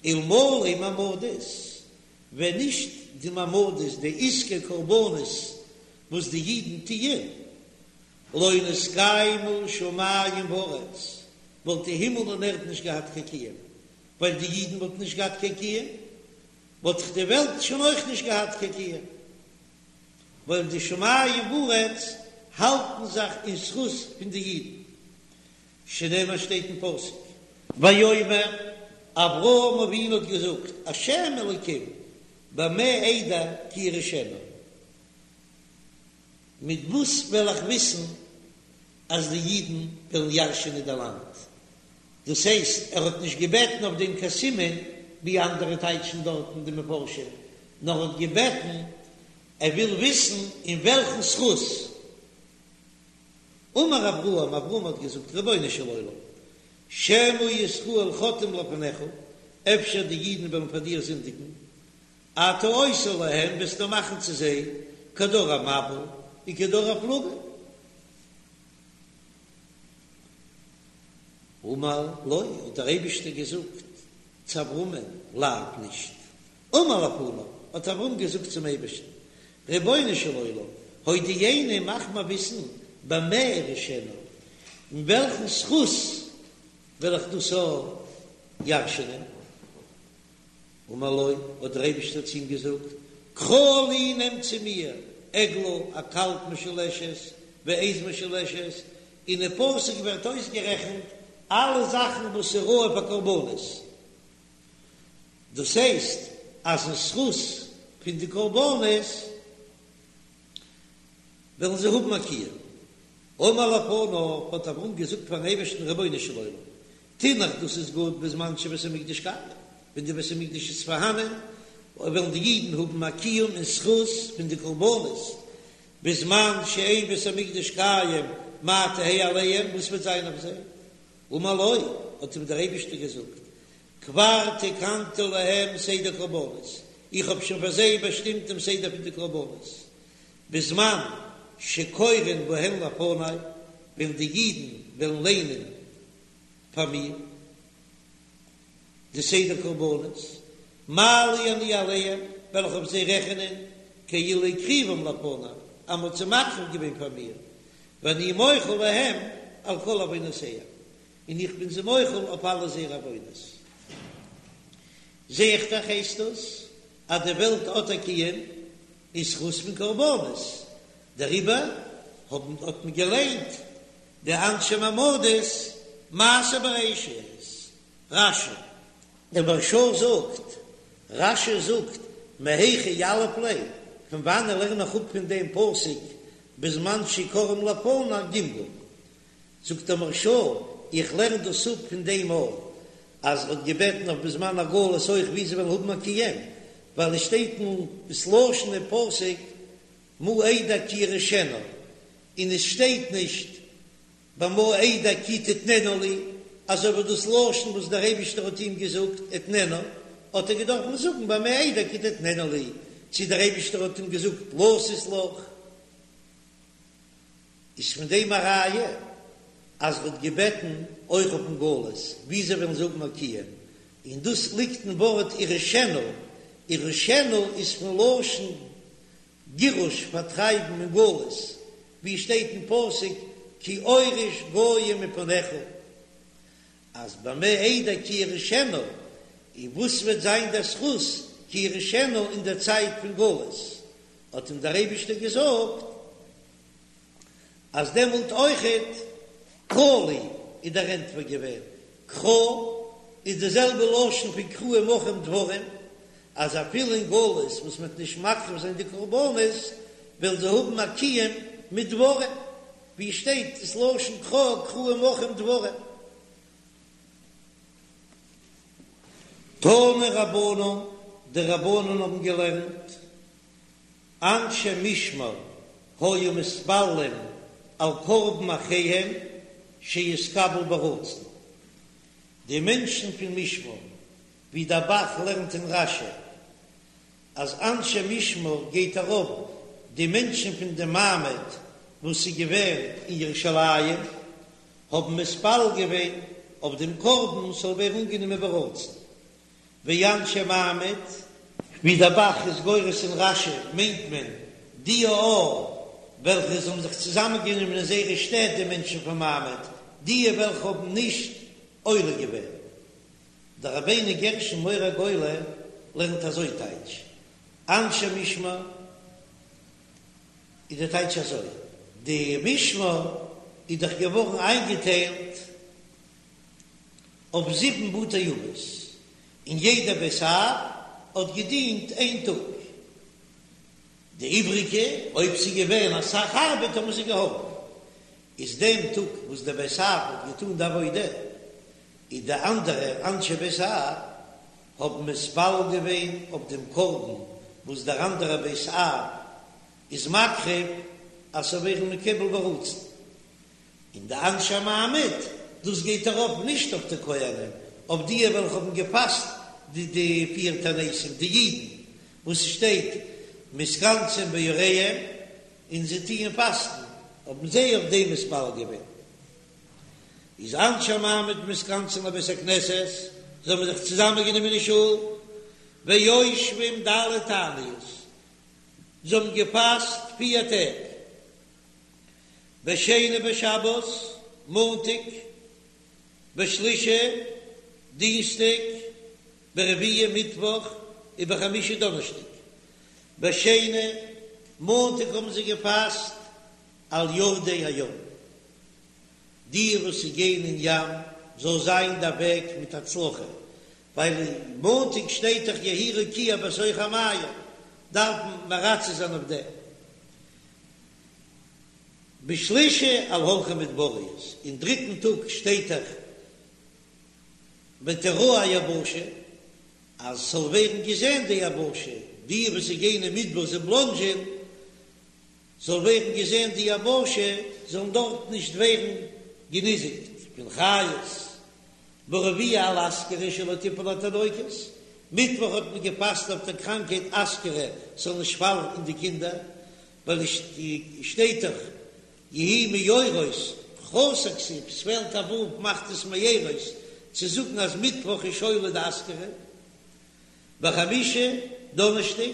A: אלמלא מעמדות, ווען נישט די מעמדות, די עסקי קרבנות וואס די אידן טוען, לא נתקיימו שמים וארץ, וואלט די הימל און ערד נישט געהאט קיין קיום, ווייל די אידן וואלטן נישט געהאט קיין קיום, וואלט דאך די וועלט שוין אויך נישט געהאט קיין קיום, ווייל די שמים וארץ האלטן זיך אין זכות פון די אידן. שנאמר שטייט אין פסוק. ויאמר, אברהם אבינו האט געזאגט, השם אלוקים, במה אדע כי אירשנה, מיט וואס וועל איך וויסן אז די אידן וועלן ירש'ענען די לאנד? דאס הייסט, ער האט נישט געבעטן אויף דעם קיין סימן, ווי אנדערע טייטשן דארטן די מפרשים, נאר האט געבעטן, ער וויל וויסן אין וועלכן זכות. אמר אברהם, אברהם האט געזאגט, רבונו של עולם, שמא ישראל חוטאים לפניך, אפשר די אידן וועלן פאר דיר זינדיגן, אתה עושה להם, וועסטו מאכן צו זיי, כדור המבול וכדור הפלגה. אמר לו, האט דער אייבישטער געזאגט צו אברהמען, לאו, נישט. אמר לפניו, האט אברהם געזאגט צום אייבערשטן, רבונו של עולם, הודיעני, מאך מיר וויסן, במה אירשנה, אין וועלכן זכות וועל איך דאס ירש'ענען? אמר לו, האט דער אייבערשטער צו אים געזאגט, קחה לי, נעם צו מיר, עגלה, א קאלב משולשת, ועז משולשת, אין די פסוק ווערט אויסגערעכנט אלע זאכן וואס איז ראוי פאר קרבנות, דאס הייסט אז אין זכות פון די קרבנות וועלן זיי האבן א קיום. אמר לפניו, האט אברהם געזאגט פארן אייבערשטן, רבונו של עולם, תינח דאס איז גוט בזמן שבית המקדש קיים, ווען די בית המקדש איז פארהאנען, וועלן די אידן האבן א קיום אין זכות פון די קרבנות, בזמן שאין בית המקדש קיים, מה תהא עליהם, וואס וועט זיין אויף זיי? אמר לו, האט אים דער אייבערשטער געזאגט, כבר תקנתי להם סדר קרבנות, איך האב שוין פאר זיי באשטימט דעם סדר פון די קרבנות, בזמן שקורין בהן לפני, ווען די אידן וועלן ליינען פאר מיר די סדר קרבנות, מעלה אני עליהם, וועל איך אויף זיי רעכענען, כאילו הקריבום לפני, אז מען האט זיי מקריב געווען פאר מיר, ואני מוחל להם על כל עוונותיהם, און איך בין זיי מוחל אויף אלע זייערע עוונות. זע איך דאך הייסט דאס אז די וועלט האט א קיום אין זכות פון קרבנות, דעריבער האבן האט מען געליינט די אנשי מעמדות מעשה בראשית, רש"י. דער מהרש"א זאגט, רש"י זאגט, מהיכא יליף ליה, פון וואנען לערן איך אפ פון דעם פסוק בזמן שקוראים לפני גמגום? זאגט דער מהרש"א, איך לערן דאס אפ פון דעם אויך, אז ער האט געבעטן אויף בזמן הגלות אויך ווי זיי וועלן האבן א קיום, ווייל עס שטייט אין ס'לשון אין פסוק. מה אדע כי אירשנה, און עס שטייט נישט במה אדע כי תתננה לי, אזוי ווי דאס לשון וואס דער אייבישטער האט אים געזאגט אתננה, האט ער געדארפן זאגן במה אדע כי תתננה לי, צו דער אייבישטער האט אים געזאגט לתת לך. איז פון דעם א ראיה אז ער האט געבעטן אויך אויפן גלות ווי זיי וועלן זאגן א קיום, און דאס ליגט אין ווארט אירשנה, אירשנה איז פון לשון גירוש פארטרייבן אין גלות, ווי שטייט אין פסוק כי אוריש גוים מפניך, אז במה אדע כי אירשנה, און וואס וועט זיין דער זכות כי אירשנה אין דער צייט פון גלות, האט אים דער אייבישטער געזאגט אז דעמאלט אויכעט קרא לי איז דער ענטפער געווען קרא איז די זעלבע לשון פון קראו עמכם דברים, אז אפילו אין גלות וואס מען וועט נישט מקריב זיין די קרבנות וועלן זיי האבן א קיום מיט דברים, ווי שטייט דאס לשון קרא קראו עמכם דברים. תנו רבנן, די רבנן האבן געלערנט, אנשי משמר היו מתפללים על קרבן אחיהם שיתקבל ברצון, די מענטשן פון משמר, ווי דער ב"ח לערנט אין רש"י אז אנשי משמר גייט ארויף די מענטשן פון די מעמד וואס איז געווען אין ירושלים, האבן מתפלל געווען אויף דעם קרבן ס'זאל ווערן אנגענומען ברצון, ואנשי מעמד, ווי דער ב"ח איז גורס אין רש"י מיינט מען די א וועלכע זיי האבן זיך צוזאמען גענומען אין זייערע שטעט די מענטשן פון מעמד, די וועלכע האבן נישט עולה געווען. דער רבינו גרשון מאור הגולה לערנט אזוי טייטש אנשי משמר איז די טייטש אזוי, די משמר איז דאך געווארן איינגעטיילט אויף זיבן בתי אבות, און יעדע בית אב האט געדינט איין טאג, די איבריגע אויב ס'איז געווען אסאך ארבעט האבן זיי געהאלפן, איז דעם טאג וואס דער בית אב האט געטאן די עבודה, איז די אנדערע אנשי בית אב האבן מתפלל געווען אויף דעם קרבן וואס דער אנדערע בית אב איז מקריב אז ס'זאל ווערן מקובל ברצון, און די אנשי המעמד, דאס גייט ארויף נישט אויף די כהנים, אויף די וועלכע האבן געפאסט די די פיר תעניתים, די אידן וואס ס'שטייט מתכנסים בעריהם און זיי טוען פאסטן, האבן זיי אויף דעם מתפלל געווען. איז אנשי המעמד מתכנסין לבית הכנסת, זיי האבן זיך צוזאמען גענומען אין שול, ויושבים ד' תעניות, זיי האבן געפאסט פיר טעג, בשני בשבת, מאנטאג, בשלישי, דינסטאג, ברביעי, מיטוואך, ובחמישי, דאנערשטאג. בשני, מאנטאג האבן זיי געפאסט על יורדי הים, די וואס גייען אין ים זאל זיין דער וועג מיט הצלחה, ווייל מאנטאג שטייט דאך יהי רקיע בתוך המים, דארף מען מרצה זיין אויף דעם. בשלישי על הולכי מדבריות, אין דריטן טאג שטייט דאך ותראה היבשה, אז ס'זאל ווערן געזען די יבשה, די וואס גייען אין מדבר זיי בלאנדזשען, זאל ווערן געזען די יבשה, זאלן דארט נישט ווערן געניזיקט פון חיות. ברביעי על אסכרה שלא תיפול לתינוקות, מיטוואך האט מען געפאסט אויף דער קראנקהייט אסכרה ס'זאל נישט פאלן אין די קינדער, ווייל עס שטייט דאך יהי מאורות חסר כתיב, ס'פעלט א ו' מאכט עס מארות צו זאגן אז מיטוואך איז שולה די אסכרה. בחמישי דאנערשטאג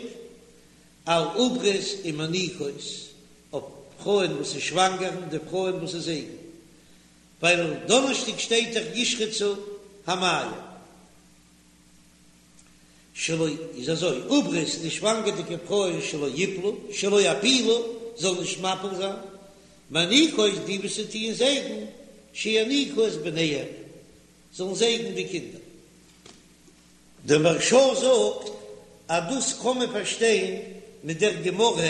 A: על עוברות ומניקות, אויף פרויען וואס איז שוואנגער און די פרויען וואס איז זייגן, ווייל דאנערשטאג שטייט דאך ישרצו המים. שלא איז אזוי, עוברות די שוואנגערדיגע פרויען שלא יפלו, שלא יפילו, זאלן נישט מפיל זיין, מניקות די וואס טוען זייגן, שיניקו את בניהם, זאלן זייגן די קינדער. דער מהרש"א זאגט אז דאס קען מען פארשטיין מיט דער גמרא,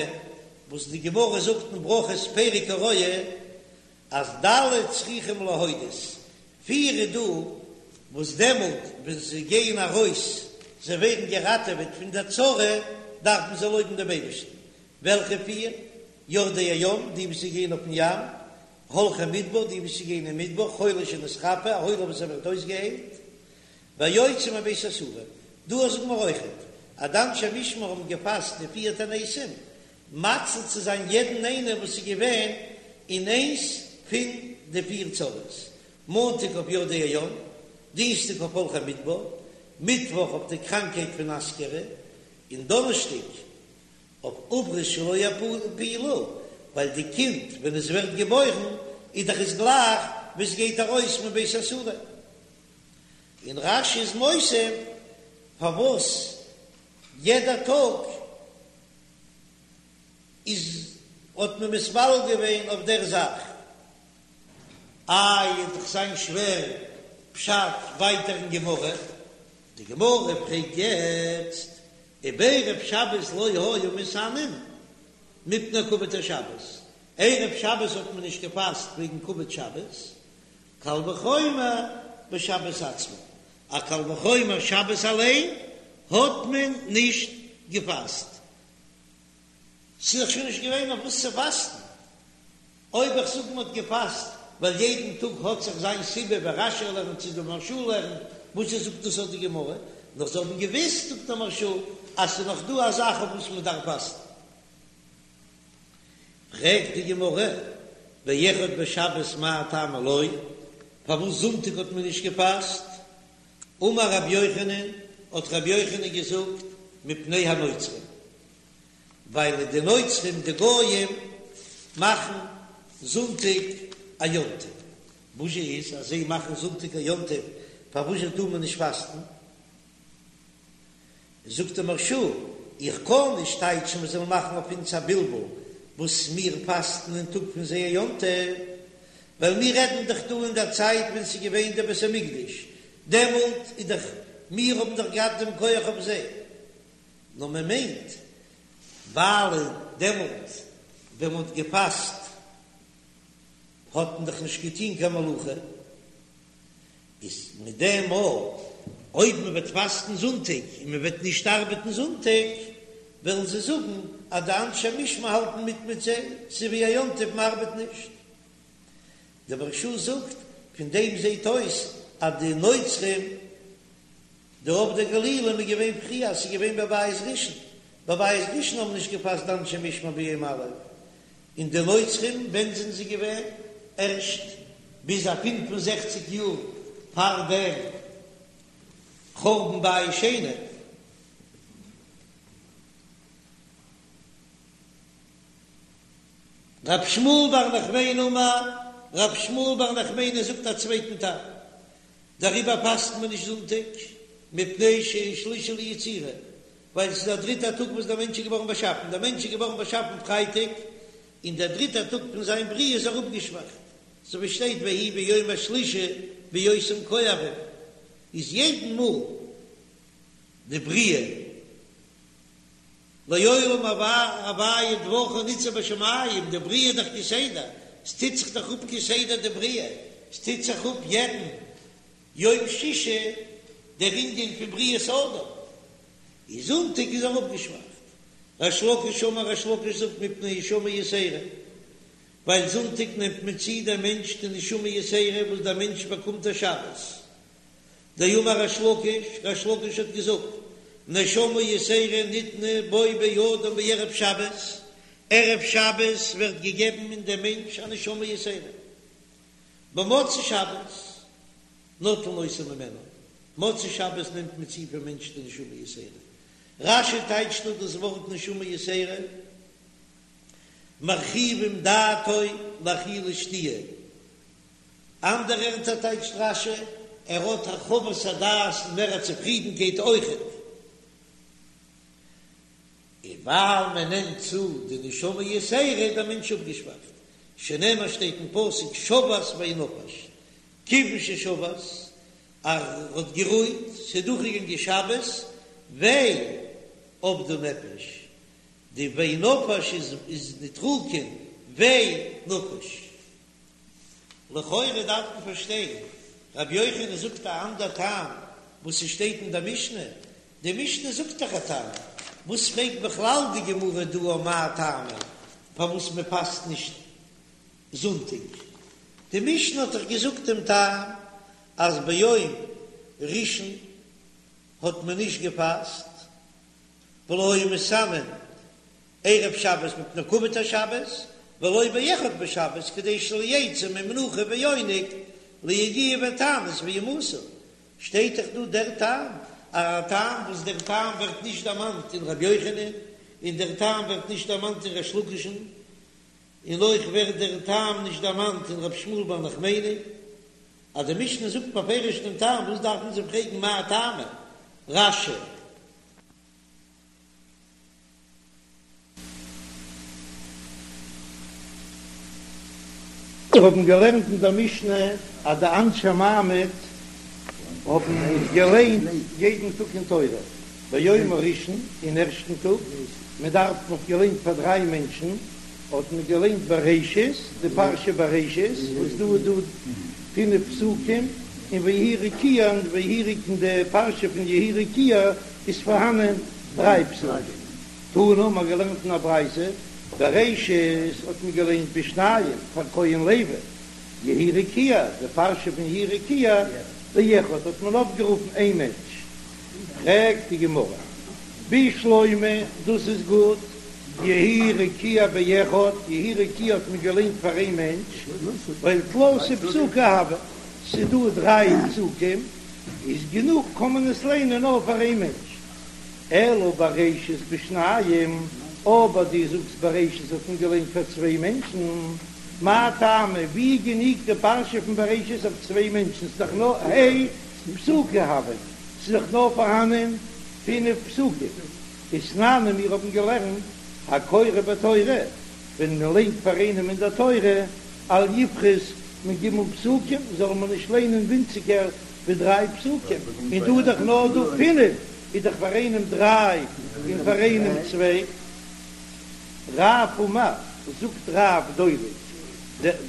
A: וואס די גמרא זאגט אין ברכות פרק הרואה, אז ד' צריכים להודות, פיר איז דא וואס דעמאלט ווען זיי גייען ארויס, זיי ווערן געראטעוועט פון דער צרה, דארפן זיי לויבן דעם אייבערשטן. וועלכע פיר? יורדי הים, די וואס גייען אויפן ים, הולכי מדבר, די וואס גייען אין מדבר, חולה שנתרפא, א חולה וואס ער ווערט אויסגעהיילט, והיוצא מבית האסורים. דא זאגן מיר אויכעט אז די אנשי משמר האבן געפאסט די פיר תעניתים מציל צו זיין יעדן איינער וואס איז געווען אין איינס פון די פיר צרות, מאנטאג אויף יורדי הים, דינסטאג אויף הולכי מדבר, מיטוואך אויף די קראנקהייט פון אסכרה, און דאנערשטאג אויף עוברות שלא יפילו, ווייל די קינד ווען עס ווערט געבוירן איז דאך עס גלייך ווי עס גייט ארויס מבית האסורים. און רש"י איז מוסיף פארוואס יעדע טאג איז האט מען מתפלל געווען אויף דער זאך. איי וועט דאך זיין שווער פשט ווייטער אין גמרא, די גמרא פרעגט יעצט ובערב שבת לא היו מתענין מפני כבוד השבת, ערב שבת האט מען נישט געפאסט וועגן כבוד שבת, קל וחומר בשבת עצמה, א קל וחומר שבת אליין האט מען נישט געפאסט, ס'איז דאך שוין נישט געווען אויף וואס צו פאסטן, אויב איך זאג מ'האט געפאסט ווייל יעדן טאג האט זיך זיין סיבה ווי רש"י לערנט צו די מהרש"א לערנט, וואס עס זאגט דאס אט די גמרא, נאר זיי האבן געוויסט זאגט דער מהרש"א אז ס'איז נאך דא א זאך אויף וואס מ'דארף פאסטן. פרעגט די גמרא, ואחד בשבת מאי טעמא לא, פארוואס זונטאג האט מען נישט געפאסט? אמר רבי יוחנן, האט רבי יוחנן געזאגט, מפני הנוצרים, ווייל די נוצרים די גויים מאכן זונטאג א יום טוב, וואס זשע איז אז זיי מאכן זונטאג א יום טוב, פארוואס זשע טאר מען נישט פאסטן? זאגט דער מהרש"א, איך קען נישט טייטשן מען זאל מאכן אויף אונז א בלבול וואס מיר פאסטן אין טאג פון זייער יום טוב, ווייל מיר רעדן דאך דא אין דער צייט ווען ס'איז געווען דער בית המקדש, דעמאלט איז דאך מיר האבן דאך געהאט דעם כח אויף זיי, נאר מען מיינט ווייל דעמאלט ווען מען האט געפאסט האט מען דאך נישט געטון קיין מלאכה. איז מיט דעם מאל אויב מען וועט פאסטן זונטאג און מען וועט נישט ארבעטן זונטאג, וועלן זיי זאגן אז די אנשי משמר האלטן מיט מיט זיי, ס'איז ווי א יום טוב מען ארבעט נישט. דער מהרש"א זאגט, פון דעם זעט אויס אז די נוצרים, די עובדי גלילים איז געווען פריער, ס'איז געווען בבית ראשון, בבית ראשון האבן נישט געפאסט די אנשי משמר ביום א', און די נוצרים ווען זענען זיי געווען? ערשט ביז א 65 יאר פאר דעם חורבן בית שני. רב שמואל בר נחמני אמר, רב שמואל בר נחמני זאגט א צווייטן טעם, דעריבער פאסט מען נישט זונטאג, מפני שהוא שלישי ליצירה, ווייל עס איז דער דריטער טאג וואס דער מענטש איז געווארן באשאפן, דער מענטש איז געווארן באשאפן פרייטאג, און דער דריטער טאג פון זיין בריאה איז ער אפגעשוואכט, אזוי ווי שטייט ויהי ביום השלישי בהיותם כואבים, איז יעדן מאל די בריאה לעולם הוויה דברך ניצב בשמים, די בריאה איז דאך כסדר, עס טוט זיך דאך אפ כסדר די בריאה, עס טוט זיך אפ יעדן יום שישי דער ענין פון בריאת האדם, איז זונטאג איז ער אפגעשוואכט. ריש לקיש אמר ריש לקיש זאגט מפני נשמה יתירה, ווייל זונטאג נעמט מען צו דעם מענטש די נשמה יתירה וואס דער מענטש באקומט א שבת. דאמר ריש לקיש, ריש לקיש האט געזאגט, נשמה יתירה ניתנה בו באדם בערב שבת, ערב שבת ווערט געגעבן אין דעם מענטש א נשמה יתירה. במוצאי שבת נוטלין אותה ממנו, מוצאי שבת נעמט מען צו פון מענטש די נשמה יתירה. רש"י טייטשט דא דאס ווארט נשמה יתירה, מרחיבים דעתו לאכילה ושתיה. אנדערע ערטער טייטשט רש"י, ער האט הרחבת הדעת און מער א צופרידנקייט אויכעט. און ווייל מען נעמט צו די נשמה יתירה איז דער מענטש אפגעשוואכט, שנאמר שטייט אין פסוק שבת וינפש, כיוון ששבת, ער האט גערוהט, ס'איז דורכגעגאנגען שבת, ויה אבדה נפש, די וינפש איז נוטריקון ויה נפש. לכאורה דארף מען פארשטיין, רבי יוחנן זאגט א אנדער טעם וואס ס'שטייט אין דער משנה, די משנה זאגט דאך א טעם. וואס פרעגט בכלל די גמרא דא אויף מאי טעמא פארוואס מען פאסט נישט זונטאג? די משנה האט דאך געזאגט דעם טעם אז ביום ראשון האט מען נישט געפאסט ולא היו מתענין ערב שבת מפני כבוד השבת, ולא באחד בשבת כדי שלא יצאו ממנוחה ועונג ליגיעה ותענית וימותו, שטייט דאך דא דער טעם, א טעם וואס דער טעם ווערט נישט דערמאנט אין ר' יוחנן, און דער טעם ווערט נישט דערמאנט אין ריש לקיש'ן, און אויך ווערט דער טעם נישט דערמאנט אין ר' שמואל בר נחמני. אז די משנה זאגט בפירוש דעם טעם, וואס דארף מען זיך פרעגן מאי טעמא? רש"י.
B: מיר האבן געלערנט אין דער משנה אז די אנשי מעמד האבן געליינט יעדן טאג אין תורה, ביום הראשון, אין ערשטן טאג, מען דארף, מען האט געליינט פאר דריי מענטשן, האט מען געליינט בראשית, די פרשה בראשית, וואס דא איז דא פינף פסוקים, און ויהי רקיע, און ויהי רקיע אין די פרשה פון יהי רקיע איז פארהאנען דריי פסוקים. תנא, מ'האט געלערנט אין א ברייתא, בראשית האט מען געליינט בשניים פאר כהן לוי, יהי רקיע, די פרשה פון יהי רקיע, באחד האט מען אויפגערופן איין מענטש. פרעגט די גמרא, בשלמא, דאס איז גוט, יהי רקיע באחד, יהי רקיע האט מען געליינט פאר איין מענטש, ווייל תלתא פסוקי הוו, ס'איז דא דריי פסוקים, איז גענוג קען מען עס ליינען נאר פאר איין מענטש. אלא בראשית בשניים, אבער דו זאגסט בראשית האט מען געליינט פאר צוויי מענטשן, מאי טעמא, ווי גענוג די פרשה פון בראשית אויף צוויי מענטשן, ס'איז דאך נאר ה' פסוקי הויין, ס'איז דאך נאר פארהאנען פינף פסוקים, ותנן און מיר האבן געלערנט הקורא בתורה, ווען מען ליינט פאר איינעם אין דער תורה, אל יפחות מג' פסוקים, זאל מען נישט ליינען ווינציגער ווי דריי פסוקים, און דא איז דאך נאר דא פינף, איז דאך פאר איינעם דריי און פאר איינעם צוויי. רב אמר, זאגט רב דולג,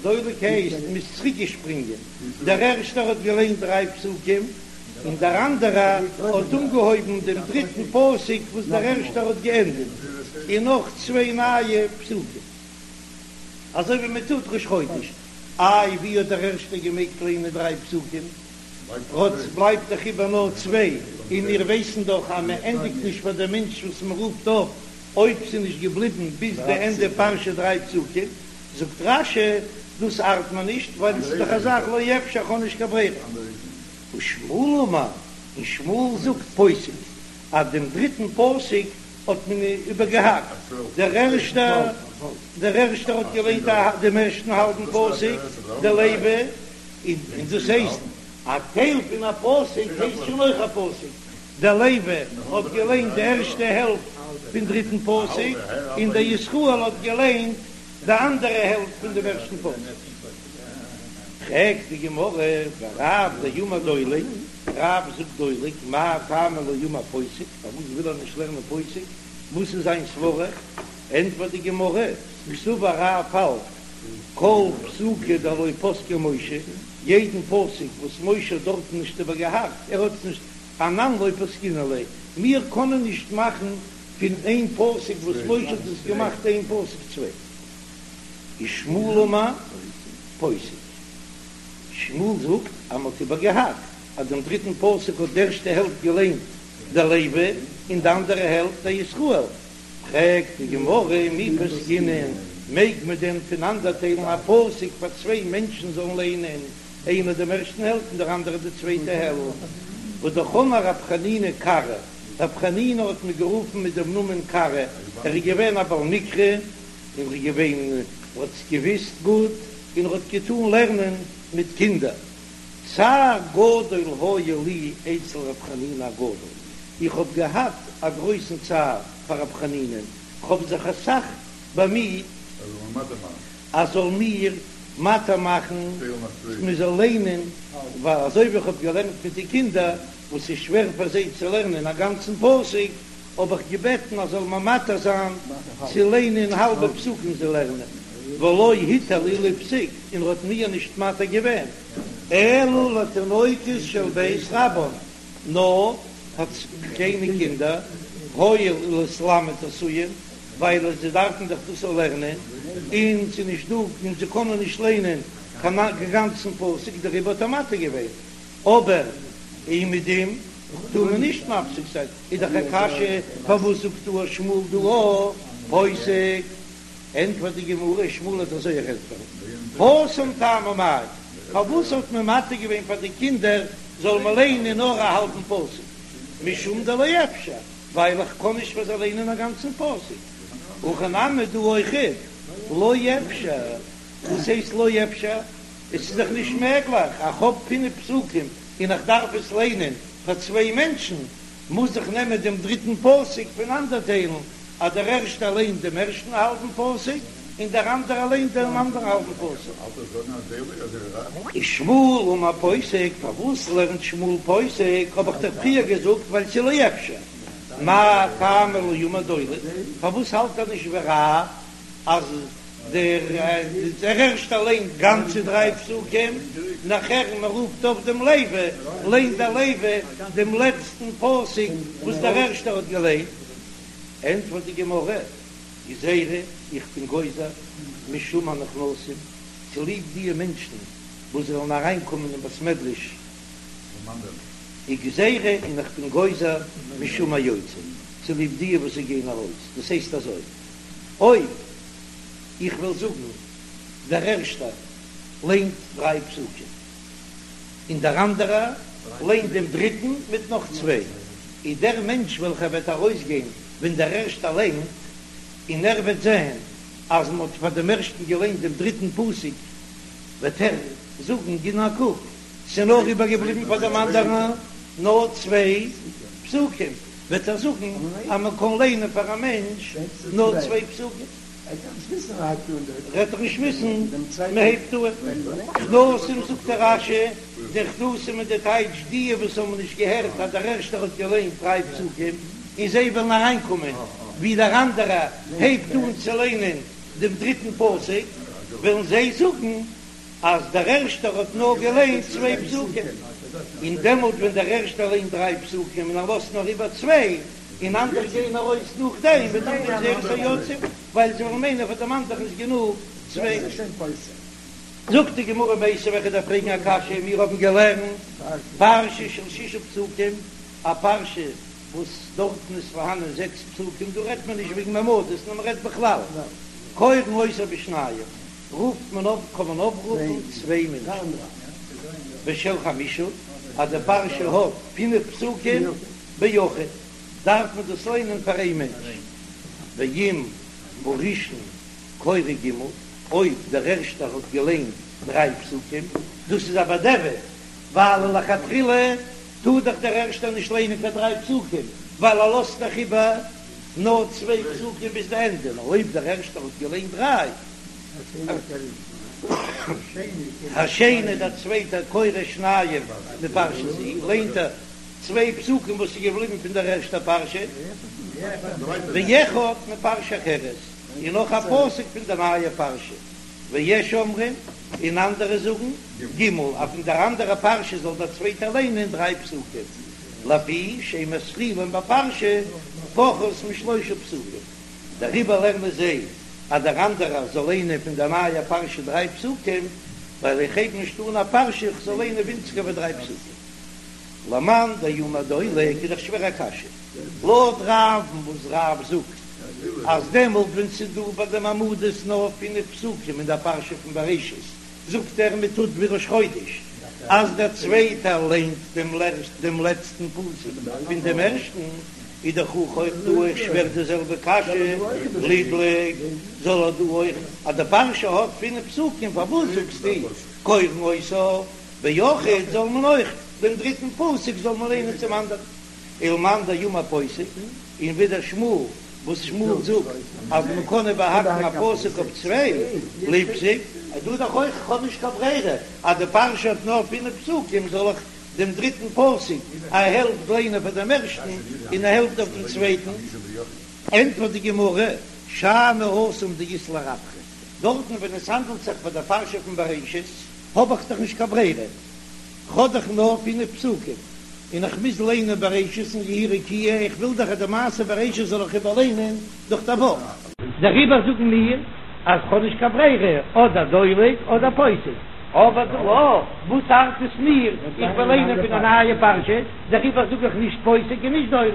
B: דולג הייסט מ'איז צוריק געשפרינגען, דער ערשטער האט געליינט דריי פסוקים, און דער אנדערער האט אנגעהויבן דעם דריטן פסוק וואס דער ערשטער האט געענדיגט, און נאך צוויי נייע פסוקים, אזוי ווי מען טוט ראש חודש. איי ווי האט דער ערשטער געמעגט ליינען דריי פסוקים? כאטש בלייבט דאך איבער נאר צוויי, און מיר ווייסן דאך אז מען ענדיגט נישט פאר דעם מענטש וואס מען רופט אויף אויב ס'איז נישט געבליבן ביז די ענדע פרשה דריי פסוקים. זאגט רש"י, דאס ארט מיר נישט, ווייל עס איז דאך א זאך לא אפשר, איך האב נישט קיין ברירה. ושמואל אמר, און שמואל זאגט פוסק, אז דעם דריטן פסוק האט מען איבערגעהאקט, דער ערשטער דער ערשטער האט געליינט דעם ערשטן האלבן פסוק, דער לוי, און דאס הייסט א טייל פון א פסוק הייסט שוין אויך א פסוק, דער לוי האט געליינט די ערשטע העלפט פון דריטן פסוק, און דער ישראל האט געליינט די אנדערע העלפט פון דעם ערשטן פסוק. פרעגט די גמרא, ורב דאמר דולג, רב זאגט דולג, מאי טעמא לא אמר פוסק, פארוואס וויל ער נישט לערנען פוסק, וואס איז זיין סברה? ענטפערט די גמרא, קסבר רב האלט כל פסוקא דלא פסקיה משה, יעדן פסוק וואס משה האט דארטן נישט איבערגעהאקט, ער האט עס נישט, אנן לא פסקינן ליה, מיר קענען נישט מאכן פון איין פסוק וואס משה האט עס געמאכט איין פסוק צוויי. ושמואל אמר פוסק, שמואל זאגט אז מען האט איבערגעהאקט אז דעם דריטן פסוק האט די ערשטע העלפט געליינט דער לוי און די אנדערע העלפט דער ישראל, פרעגט די גמרא מי פסקינן, מעג מען דען פונאנדערטיילן א פסוק פאר צוויי מענטשן זאלן ליינען, איינער דעם ערשטן העלפט און דער אנדערער די צווייטע העלפט? והא אמר רב חנינא קרא, רב חנינא האט מען גערופן מיט דעם נאמען קרא, ער איז געווען א בעל מקרא, און ער איז געווען, ער האט עס געוויסט גוט, און ער האט געטאן לערנען מיט קינדער. צער גדול היה לי אצל רב חנינא הגדול, איך האב געהאט א גרויסן צער פאר רב חנינא'ן, כ'האב זיך אסאך באמיט אז זאל מיר מתיר מאכן מען זאל ליינען, ווייל אזוי ווי איך האב געלערנט מיט די קינדער וואס איז שווער פאר זיי צו לערנען א גאנצן פסוק, האב איך געבעטן אז זאל מיר מתיר זיין צו ליינען האלבע פסוקים זיי לערנען, ולא התיר לי לפסוק, און ער האט מיר נישט מתיר געווען, אלא לתינוקות של בית רבן, נאר פאר קליינע קינדער.
A: הואיל ולהתלמד עשויין, ווייל זיי דארפן דאך דאס לערנען, און ס'איז נישט דא און זיי קענען נישט ליינען קיין גאנצן פסוק, דעריבער האט ער מתיר געווען, אבער אומעדום טאר מען נישט מפסיק זיין, איז דאך א קשיא פארוואס זאגט דא שמואל דא פוסק? ענטפערט די גמרא, שמואל וועט אזוי ענטפערן, התם טעמא מאי, פארוואס האט מען מתיר געווען פאר די קינדער זאל מען ליינען נאר א האלבן פסוק, משום דלא אפשר, ווייל איך קען נישט פאר זיי ליינען א גאנצן פסוק, הכא נמי דא אויכעט לא אפשר, וואס הייסט לא אפשר? עס איז דאך נישט מעגליך, איך האב פינף פסוקים און איך דארף עס ליינען פאר צוויי מענטשן, מוז איך נעמען דעם דריטן פסוק פונאנדערטיילן, אז דער ערשטער ליינט דעם ערשטן האלבן פסוק און דער אנדערער ליינט דעם אנדערן האלבן פסוק. ושמואל אמר פוסק, פארוואס לערנט שמואל פוסק, האב איך דאך פריער געזאגט ווייל ס'איז לא אפשר, מאי טעמא לא אמר דולג, פארוואס האלט ער נישט ווי רב אז דער ערשטער ליינט גאנצע דריי פסוקים, נאכער מען רופט אויף דעם לוי, ליינט דער לוי דעם לעצטן פסוק וואס דער ערשטער האט געליינט. ענטפערט די גמרא, גזירה, איך בין גוזר, משום הנכנסים, צוליב דיע מענטשן וואס וועלן אריינקומען אין בית מדרש, וגזירה, און איך בין גוזר משום היוצאים, צוליב דיע וואס זיי גייען ארויס, דאס הייסט אזוי, אויב איך וועל זאגן דער ערשטער ליינט דריי פסוקים און דער אנדערער ליינט דעם דריטן מיט נאך צוויי, איז דער מענטש וועלכער וועט ארויסגיין ווען דער ערשטער ליינט, און ער וועט זען אז מען האט פאר דעם ערשטן געליינט דעם דריטן פסוק, וועט ער זאגן, גיב נאר א קוק, ס'איז נאר איבערגעבליבן פאר דעם אנדערן נאר צוויי פסוקים. וועט ער זאגן אז מען קען ליינען פאר א מענטש נאר צוויי פסוקים, וועט ער נישט וויסן מען הייבט אן נכנסים זאגט דער רש"י, די נכנסים איז די טייטש די וואס האבן נישט געהערט אז דער ערשטער האט געליינט דריי פסוקים און זיי וועלן אריינקומען ווי דער אנדערער הייבט אן צו ליינען דעם דריטן פסוק וועלן זיי זאגן אז דער ערשטער האט נאר געליינט צוויי פסוקים, און דעמאלט ווען דער ערשטער ליינט דריי פסוקים און ער לאזט נאר איבער צוויי, און אנדערע גייען ארויס נאכדעם, וועט זיין גזירת היוצאים, ווייל זיי וועלן מיינען פאר דעם אנדערן איז גענוג צוויי. זאגט די גמרא מיתיבי וועל איך דיר פרעגן א קשיא, מיר האבן געלערנט פרשה של שישה פסוקים, א פרשה וואס דארטן איז פארהאנען זעקס פסוקים, דא רעדט מען נישט וועגן מעמדות נאר מען רעדט בכלל, קורין אותה בשניים, רופט מען אויף קען מען אויפרופן צוויי מענטשן ושל חמשה אז די פרשה האט פינף פסוקים ביחיד דארף מען דאס ליינען פאר איין מענטש ואם הראשון קורא ג' אויב דער ערשטער האט געליינט דריי פסוקים דאס איז א בדיעבד ווייל לכתחילה טאר דאך דער ערשטער נישט ליינען קיין דריי פסוקים ווייל ער לאזט דאך איבער נאר צוויי פסוקים ביז די ענדע נאר אויב דער ערשטער האט געליינט דריי השני דער צווייטער קורא שניים מפרשה זו, ליינט ער צוויי פסוקים וואס איז געבליבן פון דער ערשטער פרשה, ואחד מפרשה אחרת, און נאך א פסוק פון דער נייער פרשה, ויש אומרים, און אנדערע זאגן, ג', אז פון דער אנדערער פרשה זאל דער צווייטער ליינען דריי פסוקים, לפי שאין מתחילין בפרשה פחות משלושה פסוקים. דעריבער לערנען זיי אז דער אנדערער זאל ליינען פון דער נייער פרשה דריי פסוקים, ווייל איך הייב נישט אן א פרשה איך זאל ליינען ווינציגער ווי דריי פסוקים. למאן דאמר דולג איז דאך שווער א קשיא לויט רב'ן וואס רב זאגט אז דעמאלט ווען ס'איז דא ביי די מעמדות נאר פינף פסוקים אין דער פרשה פון בראשית זאגט ער מען טוט ווי ראש חודש אז דער צווייטער ליינט דעם לעצטן פסוק פון דעם ערשטן, איז דאך אויך דא אויך שווער די זעלבע קשיא, לידלוג זאל ער דא אויך אז די פרשה האט פינף פסוקים פארוואס זאגסטו קורין אותה ביחיד זאל מען אויך דעם דריטן פסוק זאל מען ליינען צום אנדערן ולמאן דאמר פוסק און ווידער שמואל וואס שמואל זאגט אז מען קען איבערהאקן א פסוק אויף צוויי ליפסוק איז דא דאך אויך כ'האב נישט קיין ברירה אז די פרשה האט נאר פינף פסוקים זאל איך דעם דריטן פסוק א העלפט ליינען פאר דעם ערשטן און א העלפט אויף דעם צווייטן. ענטפערט די גמרא, שאני התם דאית ליה רווחא, דארטן ווען עס האנדלט זיך ביי דער פרשה פון בראשית האב איך דאך נישט קיין ברירה, כ'האב דאך נאר פינף פסוקים.
B: און איך מוז ליינען בראשית און יהי רקיע, איך וויל דאך אז די מעשה בראשית זאל איך איבערליינען דורך די וואך. דעריבער זאגן מיר אז כ'האב נישט קיין ברירה, אדער דולג אדער פוסק, אבער דא וואס ארט עס מיר, איך וויל ליינען פון א נייע פרשה, דעריבער זאג איך נישט פוסק און נישט דולג.